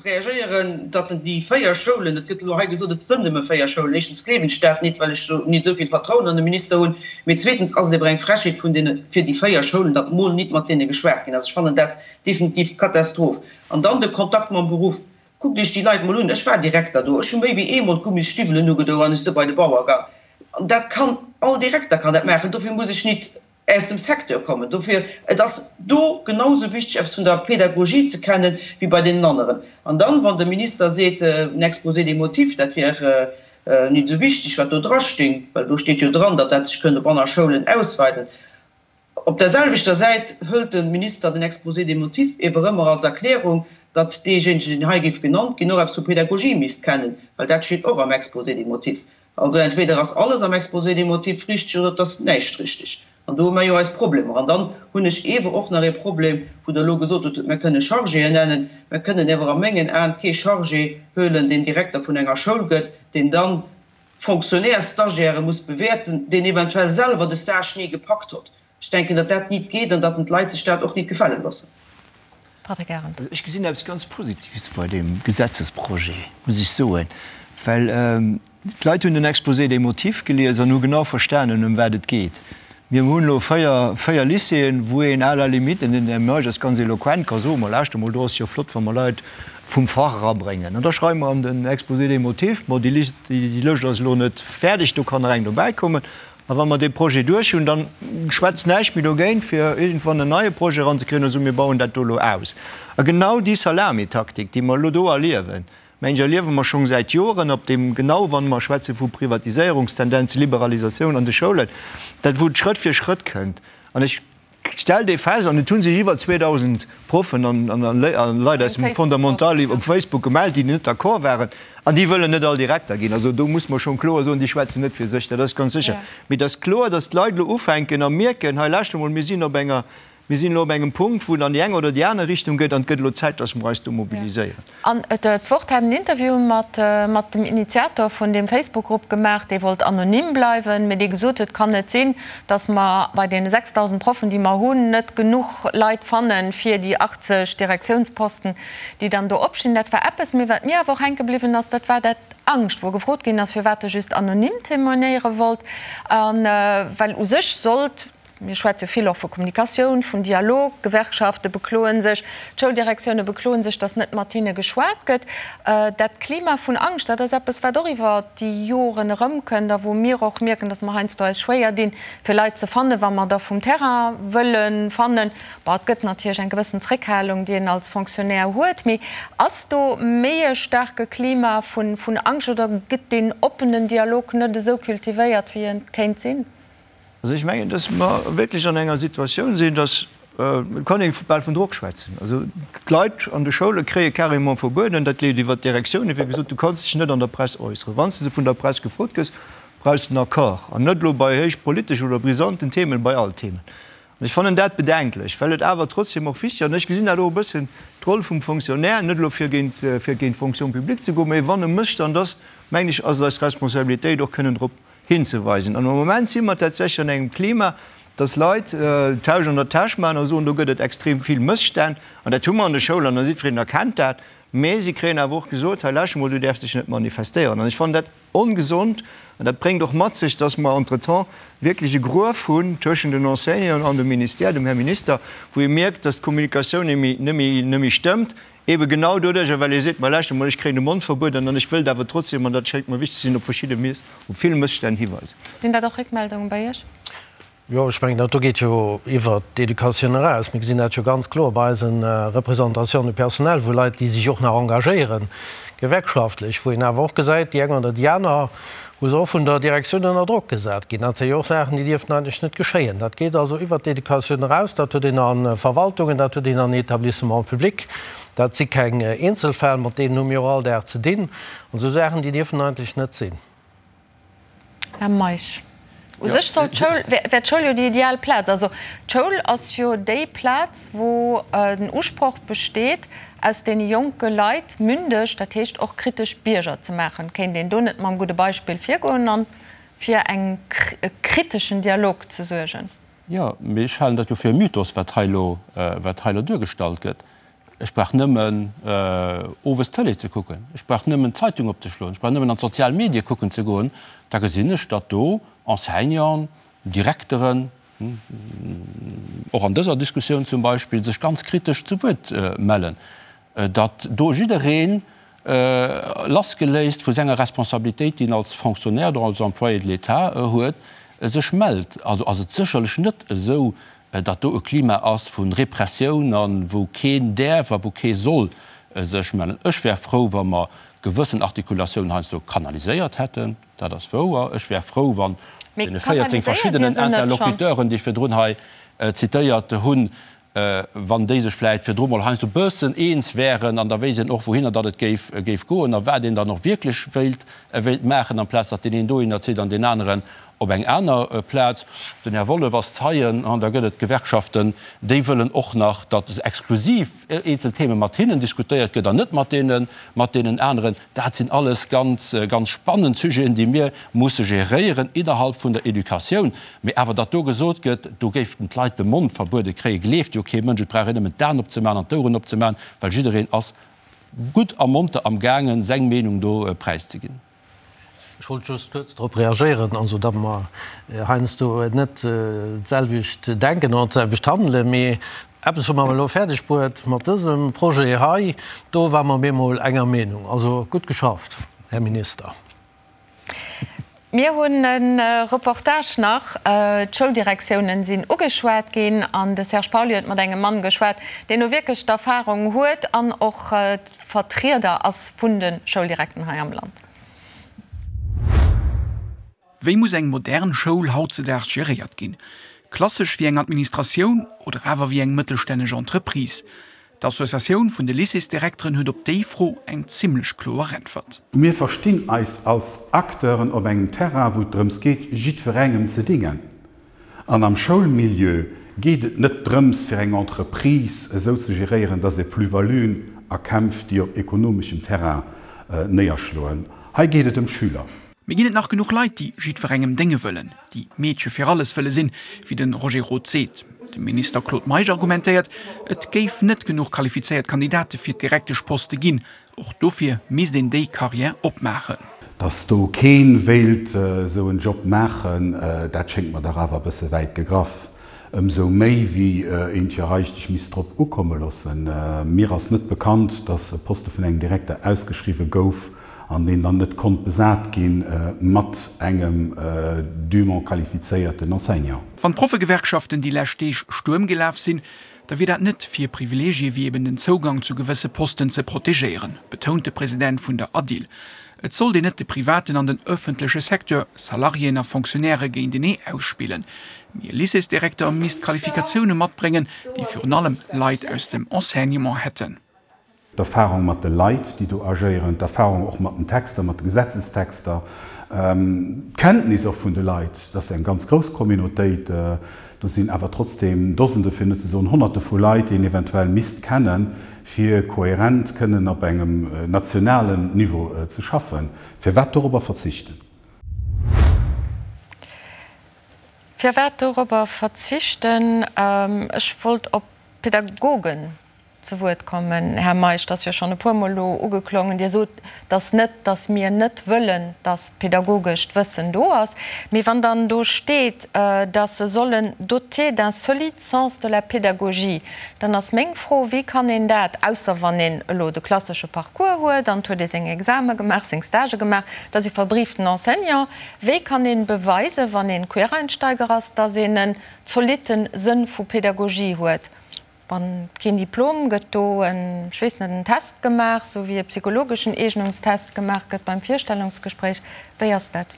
reagéieren, datt déi 4 Schoulen, et gëtt elo hei gesot, et sënn nëmme 4 Schoulen, éischtens gleewen ech dat nit, well ech nit esou vill Vertrauen an de Minister hunn, mee zweetens ass et ewer eng Frechheet vun deene, fir déi 4 Schoulen, datt mol nit mat deene geschwat ginn ass. Ech fannen dat definitiv d'Katastroph. An dann de Kontakt mam Beruff. Kuckt Iech déi Leit mol un. Ech war Direkter do. Ech hu méi wéi eemol d'Gummisstiwwelen ugedo an ech si bei de Bauer gang. An dat kann, all Direkter kann dat maachen. Dofir muss ech nit aus dem Secteur kommen. Dofir, et ass do genau sou wichteg, eppes vun der Pedagogie ze kennen, wéi bei deenen aneren. An dann, wann de Minister seet, en Exposé des motifs, dat wär nit esou wichteg, wat do drasting, well do steet jo dran, datt dat sech kënnt op aner Schoulen ausweiden. Op der selwechter Säit hëlt de Minister den Exposé des motifs ewer ëmmer als Erklärung, datt deejéinegen, deen hei géif genannt ginn, och eppes vu Pedagogie misst kennen, well dat steet och am Exposé des motifs. Also entweder ass alles am Exposé des motifs richteg oder et ass näischt richteg. An do hu mer jo eis Problemer. An dann hunn ech ewer och nach ee Problem, wou Der elo gesot hutt, mer kënne Chargéen nennen. Mer kënnen ewer a mengen Aen kee Chargé huelen, deen Direkter vun enger Schoul gëtt, deen dann Fonctionnaires-Stagiairë muss bewäerten, deen eventuell selwer de Stage ni gepackt hott. Ech denken, datt dat nit geet an datt den d'Leit sech dat och nit gefale loossen. Patrick Arendt. Also ech gesinn eppes ganz Positives bei deem Gesetzesprojet, muss ech soen, well d'Leit hunn den Exposé des motifs gelies an hu genau verstanen, ëm wat et geet. Mir hunn elo 4 Lycéeën, wou een à la limite, den Här Meisch ass ganz eloquent, ka soen, Ma lauschter mol, do ass jo flott, wa mer Leit vum Fach erabréngen. An da schreiwe mer an den Exposé des motifs, Bon, déi Lëscht ass elo net fäerdeg, do kann nach eng dobäikommen. A wa mer dee Projet duerch hunn, da schwätzt näischt méi dogéint, fir iergendwann en neie Projet eranzekréien a soen, Mir bauen dat do elo aus. A genau déi Salamitaktik, déi mer elo do erliewen, Mensch, erliewe mer schonn säit Joren op deem, genau wann mer schwätze vu Privatiséierungstendenzen, Liberalisatioun an de Schoulen, dat wou et Schrëtt fir Schrëtt kënnt. An ech stell dee fest, an et hu sech iwwer 2.000 Proffen an Leit aus dem Fondamental op Facebook gemellt, déi net d'accord waren, an déi wëllen net all Direkter ginn. Also do muss mer schonn kloer soen, déi schwätzen net fir sech, dat ass ganz sécher. Mee et ass kloer, datt d'Leit elo ufänken a mierken, hei lauschter mol, mir sinn op enger Mir sinn elo op engem Punkt, wou et an déi eng oder déi aner Richtung geet, an et gëtt elo Zäit, dass mer eis do mobiliséieren. An d'Wort hat en Interview mat mat dem Initiator vun deem Facebook-Grupp gemaach, dee wollt anonym bleiwen, mee dee gesot huet, kann net sinn, dass mer bei deene 6.000 Proffen, déi mer hunn, net genuch Leit fannen, fir déi 80 Direktiounsposten, déi dann do opstinn. Dat war eppes. Mee wat mir awer och hänke bliwwen ass, dat war dat Angscht, wou gefrot ginn ass, firwat e just anonym témoignéiere wollt, a well u sech sollt, Mir schwätze vill och vu Kommunikatioun, vun Dialog. D'Gewerkschafte bekloe sech, d'Schouldirektioune bekloe sech, datt net mat hinne geschwat gëtt. Dat Klima vun Angscht, dat ass eppes, wat och iwwer déi Joren erëmkënnt a wou mir och mierken, datt mer heiansdo eis schwéier dinn, fir Leit ze fannen, wa mer der vum Terrain wëlle fannen. Bon, et gëtt natierlech eng gewëssen Zréckhalung, déi een als Fonctionnaire huet. Mee ass do méi e staarke Klima vun Angscht oder gëtt deen oppenen Dialog net esou cultivéiert, wéi e kéint sinn? Also ech mengen, dass mer wierklech an enger Situatioun sinn, dass, et kann ee bal vun Drock schwätzen, also d'Leit an de Schoule kréie carrément verbueden, dat leeft iwwert d'Direktiounen, wéi gesot, du kanns dech net an der Press äusseren. Wann s de vun der Press gefrot gëss, brauchs de en Accord, an net elo bei héich politeschen oder brisanten Themen, bei all Themen. An ech fannen dat bedenklech, well et awer trotzdem och wichteg ass, an ech gesinn dat och e bëssen d'Roll vum Fonctionnaire, net elo fir géint, fir géint d'Fonction publique ze goen, mä wann e Mësstand ass, mengen ech, ass et eis Responsabilitéit och kënnen drop hinzeweisen. An am Moment si mer tatsächlech an engem Klima, dass Leit d'Tausch an der Täsch maachen a soen, do gëtt et extrem vill Mësstänn. An dat hu mer an de Schoulen, an jiddwereen erkennt dat. Mä si kréien awer och gesot, hei lauschter mol, du däerfs dech net manifestéieren. An ech fannen dat ongesond an dat bréngt och mat sech, dass mer entretemps wierklech e Gruef hunn tëschent den Enseignanten an dem Ministère, dem Här Minister, wou ee mierkt, dass d'Kommunikatioun net méi stëmmt. Ebe genau doduercher, well ee seet, ma lauschter mol, ech kréien de Mond verbueden an ech wëllt awer trotzdem, an dat schéngt mer wichteg ze sinn, op verschidde Miss, op vill Mësstänn hiweisen. Sinn dat och Réckmeldungen bei Iech? Jo, ech mengen, dat do geet jo iwwert d'Educatioun eraus. Mir gesinn dat jo ganz kloer bei eise Représentations du personnel, wou Leit, déi sech och nach engagéieren, gewerkschaftlech, wou een awer och gesäit, déi eng oder déi aner, wou se och vun der Direktioun ënner Drock gesat ginn. Dat si jo och Saachen, déi dierften eigentlech net geschéien. Dat geet also iwwert d'Educatioun eraus. Dat huet een a Verwaltungen, dat huet een an Établissements publics. Dat si keng Eenzelfäll, mat deenen hu mir och all Dag ze dinn. An esou Saachen, déi dierfen eigentlech net sinn. Här Meisch, u sech soll d'Schoul, wär d'Schoul jo déi ideal Plaz. Also d'Schoul ass jo déi Plaz, wou den Usproch besteet, aus deene jonke Leit mündeg, dat heescht och kritesch Bierger ze maachen. Kéint een do net mam gudde Beispill virgoen a fir eng e kriteschen Dialog ze suergen? Jo, mee ech halen dat jo fir e Mythos, wat hei elo, wat hei elo duergestallt gëtt. Ech brauch nëmmen owes d'Tëlee ze kucken, ech brauch nëmmen d'Zeitung opzeschloen, ech brauch nëmmen an d'sozial Medie kucken ze goen, da gesinn ech, datt do Enseignanten, Direkteren, och an dëser Diskussioun zum Beispill, sech ganz kritesch zu Wuert mellen, datt do jiddereen lassgeléist vu senger Responsabilitéit, déi en als Fonctionnaire oder als Employé de l'État huet, sech mellt. Also ass et sécherlech net esou, datt do e Klima ass vu Repressioun a wou keen däerf a wou kee soll sech mellen. Ech wär frou, wa mer gewëssen Artikulatiounen heiansdo kanaliséiert hätten, dat ass wouer. Ech wär frou, wann deene 14 verschiddenen Interlocuteuren, déi ech virdrun hei zitéiert hunn, wann déi sech vläicht virdru mol heiansdo e bëssen eens wären an da wéisst een och, wouhinner datt et géif, géif goen a wat een dann och wierklech wéilt, wéilt maachen, amplaz datt deen een dohinner zitt an deen aneren Op eng aner Plaz, den Här Wollef ass Zeien, an da gëtt et Gewerkschaften, déi wëllen och nach, datt exklusiv eenzel Theme mat hinnen diskutéiert gëtt an net mat deene, mat deenen aneren. Dat sinn alles ganz, ganz spannend Sujeten, déi mir musse geréieren innerhalb vun der Educatioun. Mee awer, datt do gesot gëtt, do géiften d'Leit de Mond verbuede kréien, gleeft jo kee Mënsch. Et brauch een nëmmen d'Aen opzemaachen an d'Oueren opzemaachen, well jiddereen ass gutt a monter amgaangen, seng Meenung do präiszeginn. Ech wollt just kuerz drop reagéieren, also datt mer heiansdo net d'selwecht denken oder d'selwecht handelen, mee eppes hu mer elo fäerdeg bruet mat dësem Projet hei, do ware mer bemol enger Meenung. Also gutt geschafft, Här Minister. Mir hunn e Reportage nach. D'Schouldirektiounen sinn ugeschwat ginn an de Serge Pauly huet mat engem Mann geschwat, deen do wierklech d'Erfarung huet an och Vertrieder ass vun de Schouldirekten hei am Land. Wéi muss eng modern Schoul hautzedaags geréiert ginn? Klassesch wéi eng Administratioun oder awer wéi eng mëttelstänneg Entreprise? D'Associatioun vun de Lycéesdirekteren huet op déi Fro eng zimmlech kloer Äntwert. Mir verstinn eis als Acteuren op engem Terrain, wou et drëms geet, jiddwerengem ze dingen. An am Schoulmilieu geet et net drëms, fir eng Entreprise esou ze geréieren, dass ee Plus-valuen erkämpft, déi op ekonomeschem Terrain néierschloen. Hei geet et ëm Schüler. Mee ginn et nach genuch Leit, déi jiddwerengem dénge wëllen, déi Meedche fir alles wëlle sinn, wéi de Roger Roth seet? De Minister Claude Meisch argumentéiert, et géif net genuch qualifizéiert Kandidate fir d'Direkteschposte ginn. Och dofir misst een déi Carrière opmaachen. Dass do keen wéilt esou en Job maachen, dat schéngt mer dach awer e bësse wäit gegraff. Ëmsou méi wéi een et jo eigentlech misst drop ukomme loossen. Mir ass net bekannt, dass e Poste vun engem Direkter ausgeschriwwe gouf an deen dann net konnt besat gi mat engem dûment qualifizéierten Enseignant. Wann d'Proffegewerkschaften déi lescht Deeg Stuerm gelaf sinn, da wier dat net fir Privileegie wéi eben den Zougang zu gewësse Posten ze protegéieren, betount de President vun der ADIL. Et sollt een net de privaten an den ëffentleche Secteur, Salariéen a Fonctionnairë géintenee ausspillen. Mee e Lycéesdirekter misst Qualifikatioune matbréngen, déi virun allem Leit aus dem Enseignement hätten. D'Erfahrung mat de Leit, déi do agéieren, d'Erfahrung och mat den Texter, mat de Gesetzestexter, d'Kenntnis och vun de Leit, dat ass eng ganz grouss Communautéit, do sinn awer trotzdeem Dosende, fir net ze soen Honnerte vu Leit, déi een eventuell misst kennen, fir kohärent kënnen op engem nationalen Niveau ze schaffen. Firwat dorobber verzichten? Firwat dorobber verzichten? Ech wollt op d'Pädagogen. Zu Wuert kommen. Här Meisch, et ass jo schonn e puermol elo ugeklongen, Dir sot, dass net, dass mir net wëllen, dass pedagogescht Wëssen do ass. Mee wann dann do steet, dass se sollen dotés d'un solide sens de la pédagogie, dann ass meng Fro, Wéi kann een dat, ausser wann een elo de klassesche Parcours huet an et huet ee seng Exame gemaach, seng Stagë gemaach, et ass ee verbrieften Enseignant, wéi kann ee beweisen, wann ee Quereinsteiger ass, dass een en zolitte Sënn vu Pédagogie huet? Wann keen Diplom, gëtt do en, ech weess net, en Test gemaach, sou wéi e psychologeschen Eegnungstest gemaach gëtt beim Virstellungsgespréich? Wéi ass dat?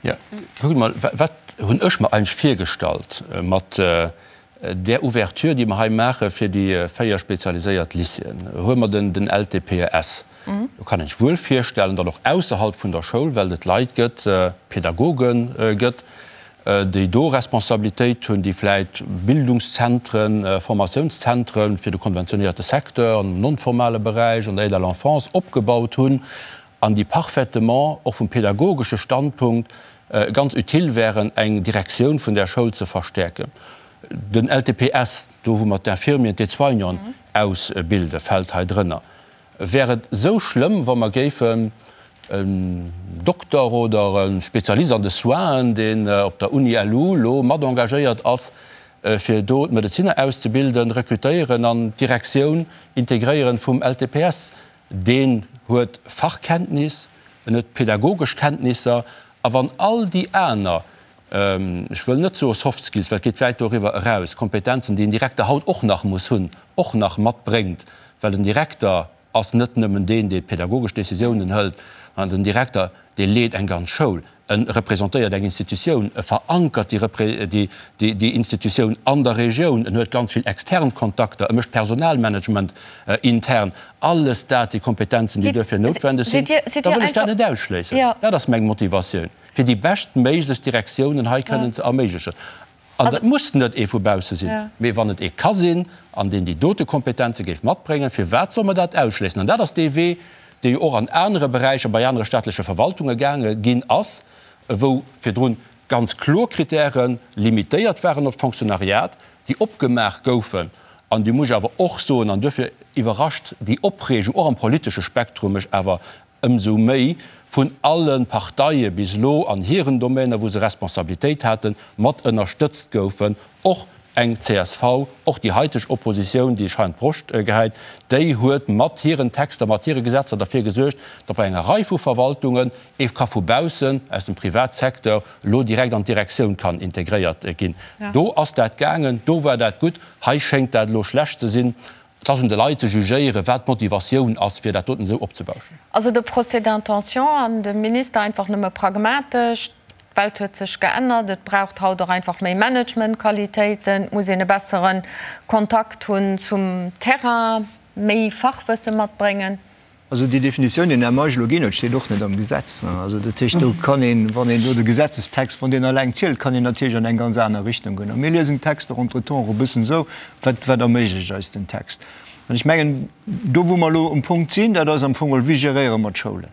Jo, kuckt emol, wat hunn ech mer eigentlech virgestallt mat där Ouverture, déi mer hei maache fir déi 4 spezialiséiert Lycéeën? Huele mer den LTPES. Do kann een sech wuel virstellen, datt och ausserhalb vun der Schoul, well et Leit gëtt, Pedagoge gëtt, déi do Responsabilitéit hunn, déi vläit Bildungszentren, Formatiounszentren fir de konventionéierte Secteur, am non-formale Beräich, an der Aide à l'enfance opgebaut hunn an déi parfaitement och vum pedagogesche Standpunkt ganz utile wären, eng Direktioun vun där Schoul ze verstäerken. Den LTPS, do wou mer d'Infirmieren, d'Aide-soignanten ausbilden, fält hei drënner. Wär et esou schlëmm, wa mer géifen en Dokter oder e Spezialist an de Soinen, deen op der Uni LU lo mat engagéiert ass, fir do d'Medezinner auszebilden, rekrutéieren an d'Direktioun integréieren vum LTPS? Deen huet Fachkenntnis, en huet pedagogesch Kenntnisser, a wann all déi aner, ech wëll net soe Soft Skills, well et geet wäit doriwwer eraus, Kompetenzen, déi en Direkter haut och nach muss hunn, och nach matbréngt, well den Direkter ass net nëmmen deen, dee pedagogesch Décisiounen hëlt, mä den Direkter, dee leet eng ganz Schoul, e representéiert eng Institutioun, e verankert déi Institutioun an der Regioun, en huet ganz vill extern Kontakter, e mécht Personalmanagement intern. Alles dat si Kompetenzen, déi duerfir noutwendeg sinn. Da wëll ech dat net ausschléissen. Dat ass meng Motivatioun, fir déi beschtméiglechst Direktiounen hei kënnen ze erméiglechen. An dat muss net ee vu bausse sinn, mee wann et ee ka sinn, an deen déi dote Kompetenze géif matbréngen, firwat soll mer dat ausschléissen? An dat ass dee Wee, dee jo och an anere Beräicher, bei anere staatleche Verwaltunge gaange ginn ass, wou virdrun ganz kloer Kritäre limitéiert waren op d'Fonctionnariat, déi opgemaach goufen. An déi muss ech awer och soen, an duerfir iwwerrascht déi Opreegung och am politesche Spektrum mech awer ëmsou méi vun alle Parteie bis elo an hiren Domäner, wou se Responsabilitéit haten, mat ënnerstëtzt goufen, och eng csv, och déi haiteg Oppositioun, déi sech hei an d'Broscht gehäit, déi huet mat hiren Texter, mat hire Gesetzer derfir gesuergt, datt bei enger Rei vu Verwaltungen ee ka vu baussen, aus dem Privatsecteur, elo direkt an d'Direktioun kann integréiert ginn. Do ass dat gaangen, do war dat gutt. Hei schéngt dat elo schlecht ze sinn. Et ass un de Leit ze jugéieren, wat d'Motivatioun ass, fir dat doten esou opzebauschen. Also de Procès d'intention an de Minister einfach nëmme pragmatesch, d'Welt huet sech geännert, et braucht haut och einfach méi Managementqualitéiten, et muss een e bessere Kontakt hunn zum Terrain, méi Fachwësse matbréngen. Also déi Definitioun, déi den Här Meisch elo ginn huet, steet och net am Gesetz. Also dat heescht, do kann een, wann een do de Gesetzestext, wann deen alleng zielt, kann een natierlech an eng ganz aner Richtung goen. A mir liesen d'Texter entretemps och e bëssen esou, wat, wat erméiglecht eis den Text? An ech mengen, do wou mer elo um Punkt sinn, dat ass am Fong geholl, wéi geréiere mer d'Schoulen?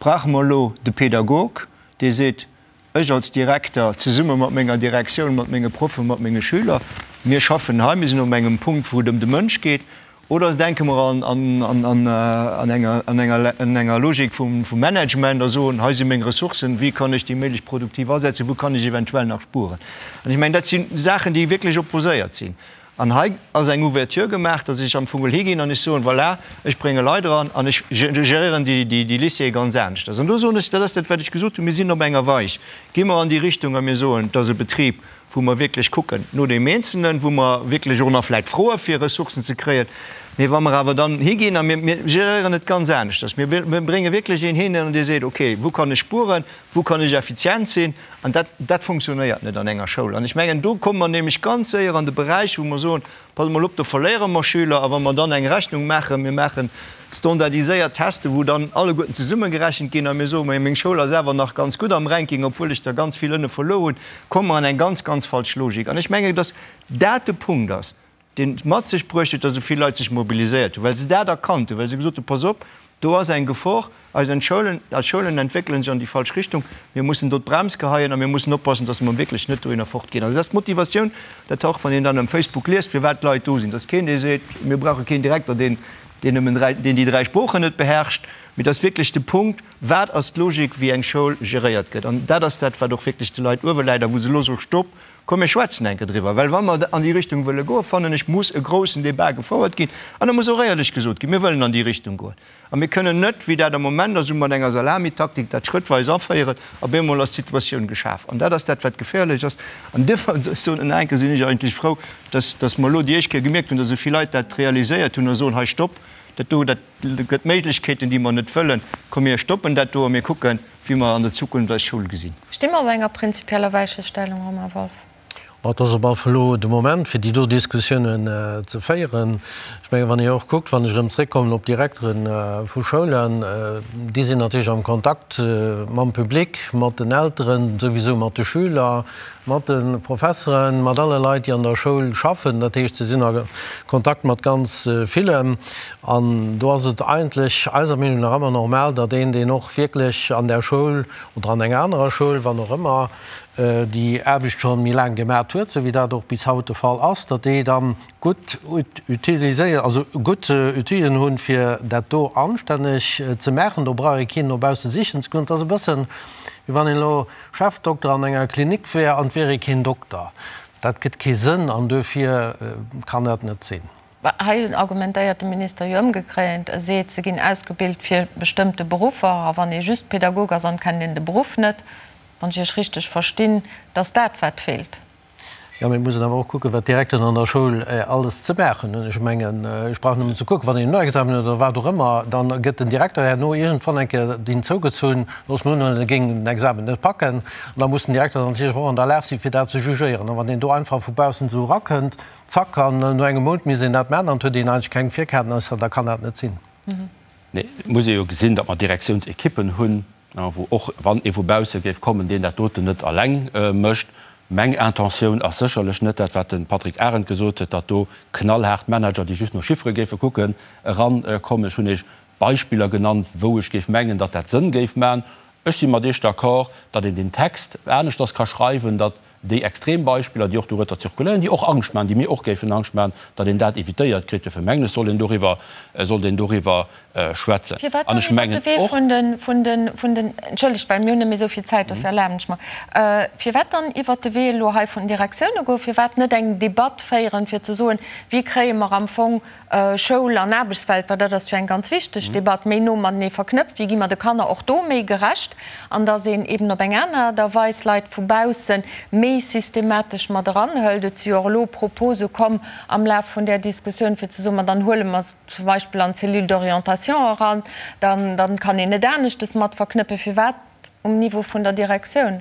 Brauche mer elo de Pedagog, dee seet, Ech als Direkter, zesumme mat menger Direktioun, mat menge Proffen, mat menge Schüler, mir schaffen hei, mir sinn op engem Punkt, wou et ëm de Mënsch geet. Oder denke mer an enger Logik vum Management a soen, hei si meng Ressourcen, wéi kann ech déi méiglech produktiv asetzen, wou kann ech eventuell nach spueren? An ech mengen, dat si Saachen, déi wierklech opposéiert sinn. An hei ass eng Ouverture gemaach, dass ech am Fong geholl higinn an ech soen, voilà, ech brénge Leit eran an ech geréieren déi Lycéeë ganz aneschters. An do soen ech, dat ass dat, wat ech gesot hunn, mir sinn op enger Weich. Gi mer an déi Richtung a mir soen, et ass e Betrib, wou mer wierklech kucken no deem Eenzelnen, wou mer wierklech och nach vläicht froe fir Ressourcen ze kréien. Mee wa mer awer dann higinn a mir geréieren et ganz aneschters, mir brénge wierklech een hin an dee seet, okay, wou kann ech spueren, wou kann ech effizient sinn, An dat, dat funktionéiert net an enger Schoul. An ech mengen, do komme mer nämlech ganz séier an de Beräich, wou mer soen, Passt emol op, do verléiere mer Schüler. A wa mer dann eng Rechnung maachen, mir maache standardiséiert Teste, wou dann alleguerten zesummegerechent ginn, a mir soen, mä meng Schoul ass awer nach ganz gutt am Ranking, obwuel ech der ganz vill ënne verluer hunn, komme mer an eng ganz, ganz falsch Logik. An ech mengen, dass dat de Punkt ass, deen et mat sech bruecht huet, datt esou vill Leit sech mobiliséiert hunn, well se dat erkannt hunn, well se gesot hunn, Pass op, Do ass eng Gefor. Eis Schoulen, eis Schoulen entwéckele sech an déi falsch Richtung. Mir mussen do d'Brems geheien a mir mussen oppassen, dass mer wierklech net dohinner fortginn. Also dat ass d'Motivatioun, dat och wann een dann um Facebook liest, firwat d'Leit do sinn. Et ass keen, dee seet, mir brauche keen Direkter, deen, deen nëmmen dräi, deen déi dräi Sproochen net beherrscht. Mee et ass wierklech de Punkt, Wat ass d'Logik, wéi eng Schoul geréiert gëtt? An dat ass dat, wat och wierklech de Leit uewe läit a wou se elo soe, Stopp, komm mir schwätzen eng Kéier driwwer. Well wa mer an déi Richtung wëlle goen, fannen ech, muss e groussen Débat gefouert ginn an da muss och éierlech gesot ginn, Mir wëllen an déi Richtung goen. A mir kënnen net, wéi dat am Moment ass, esou mat enger Salamitaktik dat schrëttweis aféieren. Op eemol ass d'Situatioun geschaf. An dat ass dat, wat geféierlech ass. An duerfir, ech soen nach eng Kéier, sinn ech eigentlech frou, dass, dass mer elo déi éischt Kéier gemierkt hunn, dass esou vill Leit dat realiséiert hunn a soen, Hei, stopp, dat do, dat gëtt Méiglechkeeten, déi mer net wëllen. Komm, mir stoppen dat do a mir kucken, wéi mer an der Zukunft eis Schoul gesinn. Sti mer op enger prinzipieller Weichestellung, Romain Wolff? Ma et ass op alle Fall elo de Moment, fir déi do Diskussiounen ze féieren. Ech mengen, wann ee och kuckt, wann ech erëm zréckkommen op d'Direktere vu Schoulen, déi sinn natierlech am Kontakt mam Public, mat den Elteren, souwisou mat de Schüler, mat de Professeren, mat alle Leit, déi an der Schoul schaffen. Dat heescht, se sinn a Kontakt mat ganz villen. An do ass et eigentlech eiser Meenung nach ëmmer normal, datt een, deen och wierklech an där Schoul oder an enger anerer Schoul, wann och ëmmer, déi Aarbecht scho méi laang gemat huet, esou wéi dat och bis haut de Fall ass, datt déi dann gutt utiliséiert, also gutt Outilen hunn, fir dat do anstänneg ze maachen. Do brauch ee keen no bausse sichen ze goen. Et ass e bëssen, wéi wann een elo Chefdokter an enger Klinik wär an et wier ee keen Dokter. Dat gëtt kee Sënn an duerfir kann dat net sinn. Hei argumentéiert de Minister jo ëmgekréint. E seet, se ginn ausgebilt fir bestëmmte Beruffer a wann ee just Pädagog ass an kennt een de Beruff net, wann ech Iech richteg verstinn, dass dat wat feelt. Jo, mee et muss een awer och kucken, wat d'Direkteren an der Schoul alles ze maachen hunn. Ech mengen, ech brauch nëmmen ze kucken, wann een en Noexamen huet oder wat och ëmmer, da gëtt den Direkter herno iergendwann eng Kéier deen zougezunn, loosse mer unhuelen, e géing den Examen net packen. An da muss den Direkter dann natierlech och an der Lag sinn, fir dat ze jugéieren. A wann deen do einfach vu baussen esou erakënnt, zack, an no engem Mount misst een dat maachen an et huet een eigentlech keng Virkenntnesser, da kann dat net sinn. Nee, et muss ee jo gesinn, datt mer Direktiounsekippen hunn, wou och wann ee vu bausse géif kommen, deen dat doten net eleng mécht. Meng Intentioun ass sécherlech net dat, wat de Patrick Arendt gesot huet, datt do knallhaart Manager, déi just no Chiffere géife kucken, erankommen. Ech hunn Iech Beispiller genannt, wou ech géif mengen, datt dat Sënn géif maachen. Ech si mat Iech d'accord, datt een deen Text aneschters ka schreiwen, datt déi extrem Beispiller, déi och dorueter zirkuléieren, déi och Angscht maachen, déi mir och géifen Angscht maachen, datt een dat évitéiert kritt. Dofir mengen ech, soll een doriwwer, sollt een doriwwer schwätzen. Firwat An dann ech iwwert mengen de Wee och. vun de, vun de, vun den, entschëllegt, well mir hunn net méi esou vill Zäit, dofir erlaben ech mer, firwat dann iwwert de Wee elo hei vun den Direktioune goen? Firwat net eng Debatt féieren, fir ze soen, wéi kréie mer am Fong Schoul an Aarbechtswelt, well dat ass jo eng ganz wichteg Debatt, méi no matenee verknëpft, wéi gi mer de Kanner och do méi gerecht, an dass een eben op eng aner Aart a Weis Leit vu bausse méi systematesch mat eranhëlt. Et si jo och elo Propose komm am Laf vun där Diskussioun, fir ze soen, ma dann huele mer se zum Beispill an d'Cellule d'orientation eran, dann dann kann een et aneschtes mat verknëppen. Firwat um Niveau vun der Direktioun?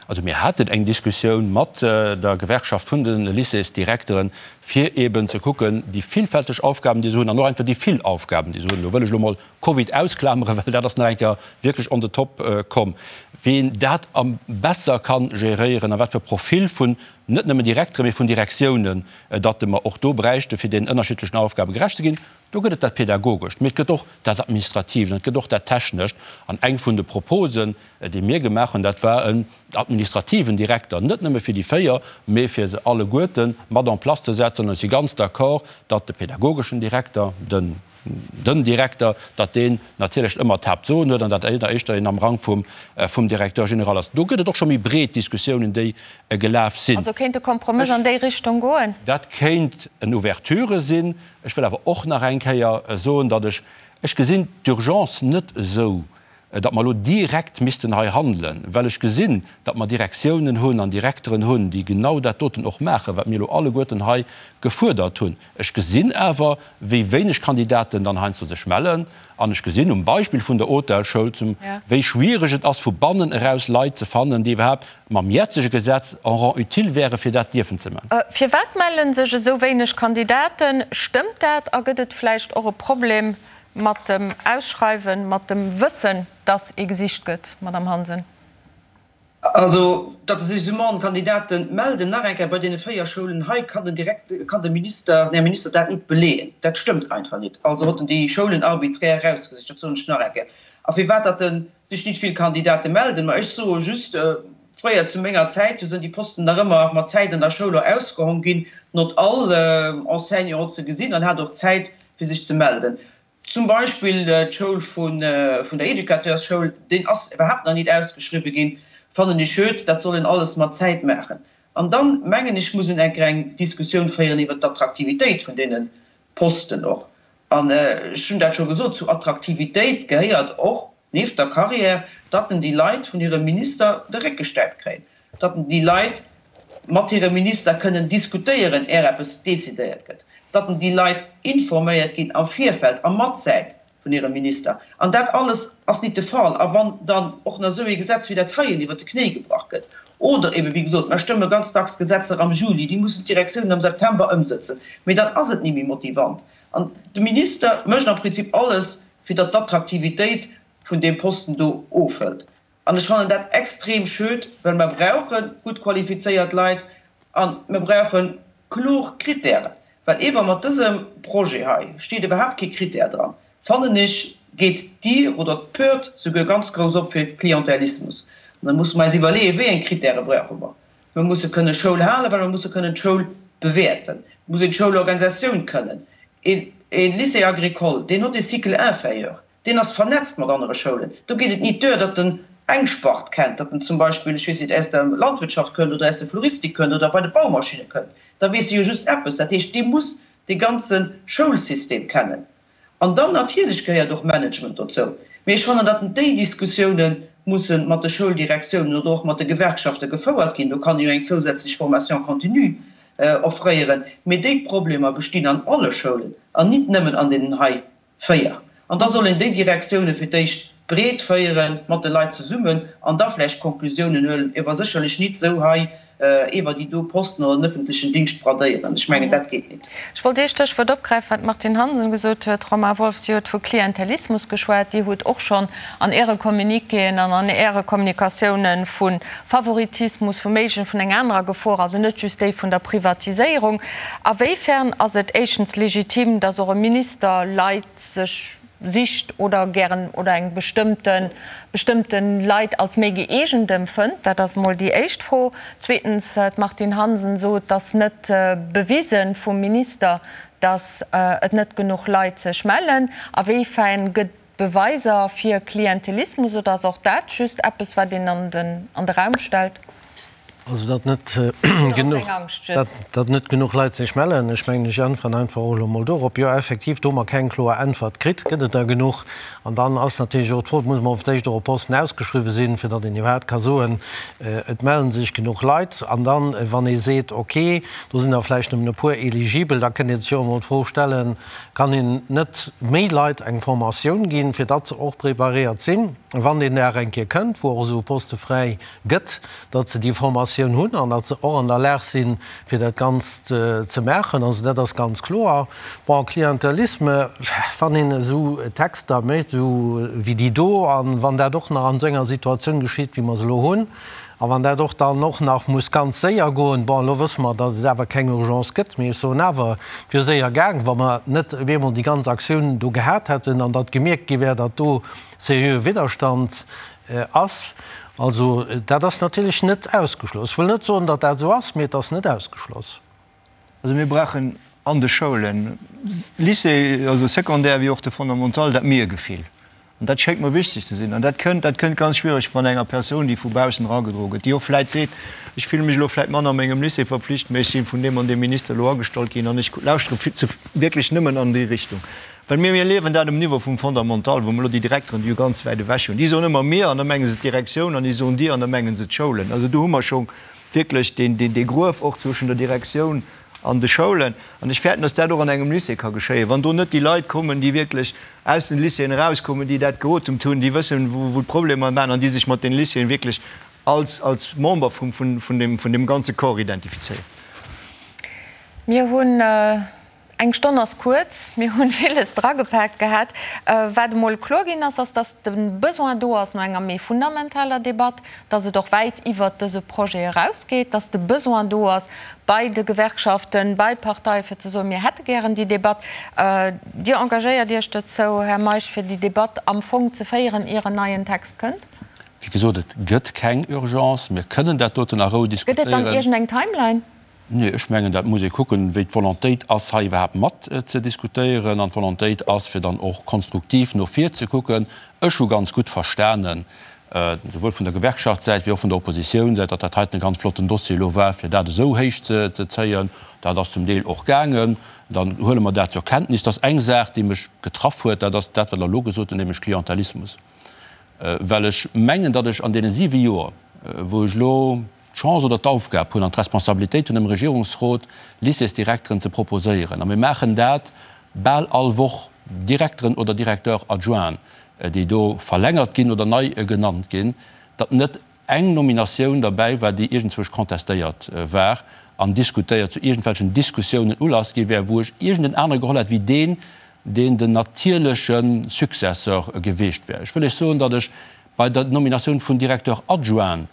Also mir haten eng Diskussioun mat der Gewerkschaft vun de Lycéesdirekteren, fir eeben ze kucken, déi villfälteg Aufgaben, déi se hunn, an och einfach déi vill Aufgaben, déi se hunn, do wëll ech elo mol Covid ausklameren, well dat ass nach eng Kéier wierklech on the top komm, wien dat am besser ka geréieren a wat fir e Profil vun net nëmmen Direkteren, mee vun Direktiounen, datt mer och do bräichten, fir deenen ënnerschiddlechen Aufgabe gerecht ze ginn. Do gëtt et dat Pädagogescht, mee et gëtt och dat Administratiivt an et gëtt och dat Technescht. An eng vun de Proposen, déi mir gemaach hunn, dat war en administrativen Direkter, net nëmme fir déi 4, mee fir se alleguerte mat en place ze setzen. An ech si ganz d'accord, datt de pädagogeschen Direkter, den, den Direkter, datt deen natierlech ëmmer d'Haaptsoen huet an datt éischter een am Rang vum, vum Directeur général ass. Do gëtt et och scho méi breet Diskussiounen, déi gelaf sinn. Also kéint e Kompromëss an déi Richtung goen? Dat kéint en Ouverture sinn. Ech wëll awer och nach eng Kéier soen, datt ech, ech gesinn d'Urgence net esou, datt mer elo direkt missten hei handelen, well ech gesinn, datt mer Direktiounen hunn an Direkteren hunn, déi genau dat doten och maachen, wat mir elo alleguerten hei gefuerdert hunn. Ech gesinn awer, wéi wéineg Kandidaten dann heiansdo sech mellen. An ech gesinn um Beispill vun der Hotelschoul zum, wéi schwierig et ass, vu bannen eraus Leit ze fannen, déi iwwerhaapt mam jetzege Gesetz en rang utile wäre fir dat dierfen ze man. Firwat melle sech esou wéineg Kandidaten? Stëmmt dat? A gëtt et vläicht och e Problem mat dem Ausschreiwen, mat dem Wëssen, dass ee gesicht gëtt, Madamm Hansen? Also, datt sech esou mann Kandidate melden, nach eng Kéier, bei deene 4 Schoulen hei kann den Direkt, kann de Minister, den Här Minister dat nit beleeën. Dat stëmmt einfach nit. Also huet en déi Schoulen arbiträr erausgesicht, dat soen ech nach eng Kéier. A firwat datt en sech nit vill Kandidate melden? Ma ech soe just, fréier zu menger Zäit, do sinn déi Posten nach ëmmer mat Zäit an der Schoul och ausgehong ginn, not all Enseignant hott se gesinn an hat och Zäit fir sech ze melden. Zum Beispill d'Schoul vun der Educateursschoul, deen ass iwwerhaapt nach nit ausgeschriwwen ginn, fannen ech schued. Dat soll een alles mat Zäit maachen. An dann, mengen ech, muss een eng Kéier eng Diskussioun féieren iwwert d'Attraktivitéit vun deene Posten och. An ech hunn dat scho gesot, zu Attraktivitéit gehéiert och, nieft der Carrière, datt en déi Leit vun hirem Minister de Réck gestäipt kréien, datt en déi Leit mat hirem Minister kënnen diskutéieren, är eppes decidéiert gëtt, datt en déi Leit informéiert ginn am Virfeld a matzäit vun hirem Minister. An dat alles ass nit de Fall. A wann dann och nach esou ee Gesetz wéi dat heien iwwert de Knéi gebrach gëtt, oder eben, wéi gesot, mer stëmme ganz dacks Gesetzer am Juli, déi mussen d'Direktiounen am September ëmsëtzen, mee dann ass et ni méi motivant. An de Minister mécht am Prinzip alles, fir datt d'Attraktivitéit vun deem Posten do ofhëlt. An ech fannen dat extrem schöd, well mer brauche gutt qualifizéiert Leit a mer brauche kloer Kritären. Well ewer mat dësem Projet hei steet iwwerhaapt kee Kritär dran, fannen ech, geet d'Dier oder d'Pört souguer ganz grouss op fir Klientelismus. An da musse mer eis iwwerleeën, wéi eng Kritäre brauche mer. Mer musse kënne Schoul halen, well mer musse kënnen d'Schoul bewäerten. Et muss een d'Schoulorganisatioun kënnen. E Lycée agricole, deen huet e Cycle inférieur. Deen ass vernetzt mat anere Schoulen. Do geet et nit duer, datt en eng Spart kennt, datt en zum Beispill, ech weess nit, aus der Landwirtschaft kënnt oder aus der Floristik kënnt oder bei de Baumaschinne kënnt. Da weess e jo just eppes. Dat heescht, dee muss dee ganze Schoulsystem kennen. An dann natierlech gehéiert och Management dozou. Mee ech fannen, datt déi Diskussioune musse mat de Schouldirektiounen oder och mat de Gewerkschafte gefouert ginn. Do kann ee jo eng zousätzlech Formation continue offréieren. Mee déi Problemer bestinn an alle Schoulen an nit nëmmen an deenen hei 4. An da soll een déi Direktioune fir d'éischt breet féiere mat de Leit zesummen an da vläicht Konklusiounen huelen, ewer sécherlech nit esou hei ewer déi do Posten oder den öffentlechen Dingscht bradéieren. Ech mengen, dat geet nit. Ech wollt ee Stéchwuert opgräifen, wat d'Martine Hansen gesot huet. Romain Wolff, Dir hutt vu Klientelismus geschwat. Dir hutt och schonn an Äre Communiquéen an an Äre Kommunikatiounen vu Favoritismus, vu méiglechen, vun enger anerer Gefor, also net just déi vun der Privatiséierung. A wéifern ass et éischtens legitim, datt och e Minister Leit sech sicht oder gären oder eng bestëmmte bestëmmte Leit als méi gëeegent empfënnt? Dat ass emol déi éischt Fro. Zweetens, d'Martine Hansen sot, et ass net bewisen vum Minister, datt et net genuch Leit sech mellen. A wéifern gëtt Beweiser fir Klientelismus oder ass och dat just eppes, wat een an den an de Raum stellt? Also datt net genuch, datt net genuch Leit sech mellen, ech mengen, ech äntweren einfach och elo mol dorop, Jo, effektiv, do hu mer keng kloer Äntwert kritt. Gëtt et der genuch? An dann ass natierlech och d'Fro, et muss emol fir d'éischt och e Posten ausgeschriwwen sinn, fir datt een iwwerhaapt ka soen, et mellen sech genuch Leit. An dann, wann ee seet, okay, do sinn der vläicht nëmmen e puer eligibel, da kënnt ee sech jo och emol d'Fro stellen, Kann een net méi Leit eng Formatioun ginn, fir datt se och preparéiert sinn, wann deen Dag eng Kéier kënnt, wou och esou e Poste fräi gëtt, datt se déi Formatioun hunn an datt se och an der Lag sinn, fir dat Ganzt ze maachen? Also dat ass ganz kloer. Bon, Klientelisme, wann een esou Texter mécht, esou wéi déi do, a wann dat och nach an esou enger Situatioun geschitt, wéi mer se elo hunn, A wann dat och dann och nach muss ganz séier goen, bon, elo wësse mer, datt et awer keng Urgence gëtt, mee ech soen awer, et wier séier gaang, wa mer net op eemol déi ganz Aktioun do gehat hätten an datt gemierkt gi wär, datt do seriöe Widderstand ass. Also dat ass natierlech net ausgeschloss. Ech wëll net soen, datt dat esou ass, mee et ass net ausgeschloss. Also mir brauchen an de Schoulen, Lycée, also Secondaire wéi och de Fondamental, dat Mir-Gefill. An dat schéngt mer wichteg ze sinn. An dat kënnt, dat kënnt ganz schwiereg van enger Persoun, déi vu baussen eragedroe gëtt, déi och vläit seet, ech fille mech elo vläit manner mengem Lycée verpflicht, mä ech si vun deem an deem Minister elo agestallt ginn an ech lauschtere wierklech nëmmen an déi Richtung. Well mir, mir erliewen dat um Niveau vum Fondamental, wou mer elo déi Direkteren, déi jo ganz wäit ewech hunn, déi soen ëmmer mir an da menge se d'Direktioun an déi soen dir an da menge se d'Schoulen. Also do hu mer scho wierklech deen, deen, dee Gruef och zwëschen der Direktioun an de Schoulen. An ech fäerten, dass dat och an engem Lycée ka geschéien, wann do net déi Leit kommen, déi wierklech aus den Lycéeën erauskommen, déi dat geotemt hunn, déi wëssen, wou, wou d'Problemer waren an déi sech mat den Lycéeën wierklech als, als Member vum, vun, vun deem, vun deem ganze Corps identifizéieren. Mir hunn. Eng Stonn ass kuerz, mir hunn villes dragepaakt gehat. Wat emol kloer ginn ass, ass, datt de Besoin do ass no enger méi fundamentaler Debatt, datt et och wäit iwwert dëse Projet erausgeet, datt de Besoin do ass bei de Gewerkschaften, bei Parteien, fir ze soen, mir hätte gären déi Debatt. Dir engagéiert Iech dozou, Här Meisch, fir déi Debatt am Fong ze féieren, ier en neien Text kënnt? Wéi gesot, et gëtt keng Urgence. Mir kënnen dat doten a Rou Gëtt et dann diskutéieren. iergendeng Timeline? Nee, ech mengen, dat muss ee kucken, wéi d'Volontéit ass, hei iwwerhaapt mat ze diskutéieren. An d'Volontéit ass, fir dann och konstruktiv no vir ze kucken. Ech hu ganz gutt verstanen, souwuel vun der Gewerkschaftssäit wéi och vun der Oppositiounssäit, datt dat heiten e ganz flotten Dossier elo war, fir dat esou héich ze zéien. Dat ass zum Deel och gaangen. Dann huele mer dat zur Kenntnis. Dat ass eng Saach, déi mech getraff huet, dat ass dat, wat Der elo gesot hutt, nämlech Klientelismus. Well ech mengen, datt ech an deene siwe Joer, wou ech elo d'Chance oder d'Aufgab hunn an d'Responsabilitéit hunn, dem Regierungsrot Lycéesdirekteren ze proposéieren, a mir maachen dat bal all Woch, Direkteren oder Directeurs adjoints, déi do verlängert ginn oder nei genannt ginn, datt net eng Nominatioun derbäi war, déi iergendzwousch contestéiert war an diskutéiert, zu iergendwelchen Diskussiounen Ulass gi wär, wou ech iergenden anere geholl hätt wéi deen, deen den natierleche Successeur geweecht wär. Ech wëll Iech soen, datt ech bei der Nominatioun vun Directeur adjoint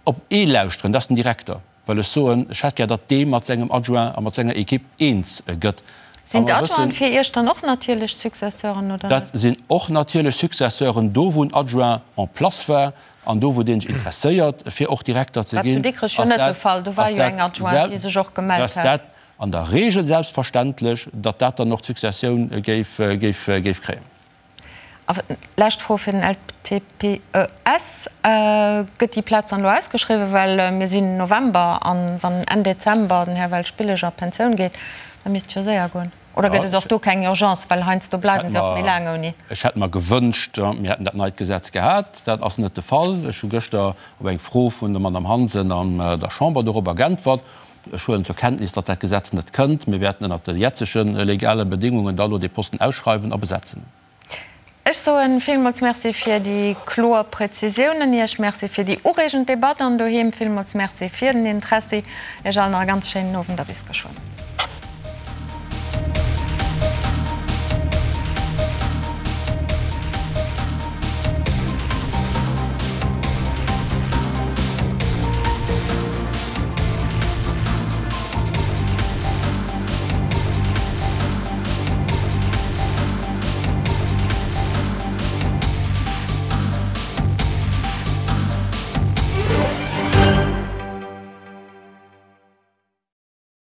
op ee lauschteren, dat ass den Direkter, well ech soen, ech hätt gär, datt dee mat sengem Adjoint a mat senger Equipe eens gëtt. A Sinn mer wëssen. d'Adjointen fir Iech dann och natierlech Successeuren oder Dat net? sinn och natierlech Successeuren, do wou en Adjoint en place war an do wou dee sech interesséiert fir och Direkter ze War zu ginn, Dikrech jo ass net de dat, Fall, do war ass jo dat eng Adjointe, déi sech och gemellt ass hat. dat an der Regel selbstverständlech, datt dat dann och d'Successioun géif, géif, géif kréien. A lescht Fro fir den LTPES, Gëtt déi Plaz dann elo ausgeschriwwen? Well mir sinn November an wann Enn Dezember den Här Welsch-Billig a Pensioun geet, da misst et jo séier goen. Oder gëtt et och do keng Urgence, well heiansdo bleiwen se och méi laang ouni? Ech hätt mer gewënscht, mir hätten dat neit Gesetz gehat. Dat ass net de Fall. Ech hu gëschter op eng Fro vun der Madame Hansen an der Chamber dorobber geäntwert. Ech huelen zur Kenntnis, datt dat Gesetz net kënnt. Mir wäerten ënnert de jetzege legale Bedingungen da elo dee Posten ausschreiwen a besetzen. Ech soe villmools Merci fir déi kloer Präzisiounen. Iech Merci fir déi ureegend Debatt an doheem villmools Merci fir den Interessi. Iech allen nach e ganz schéinen Owend a bis geschwënn.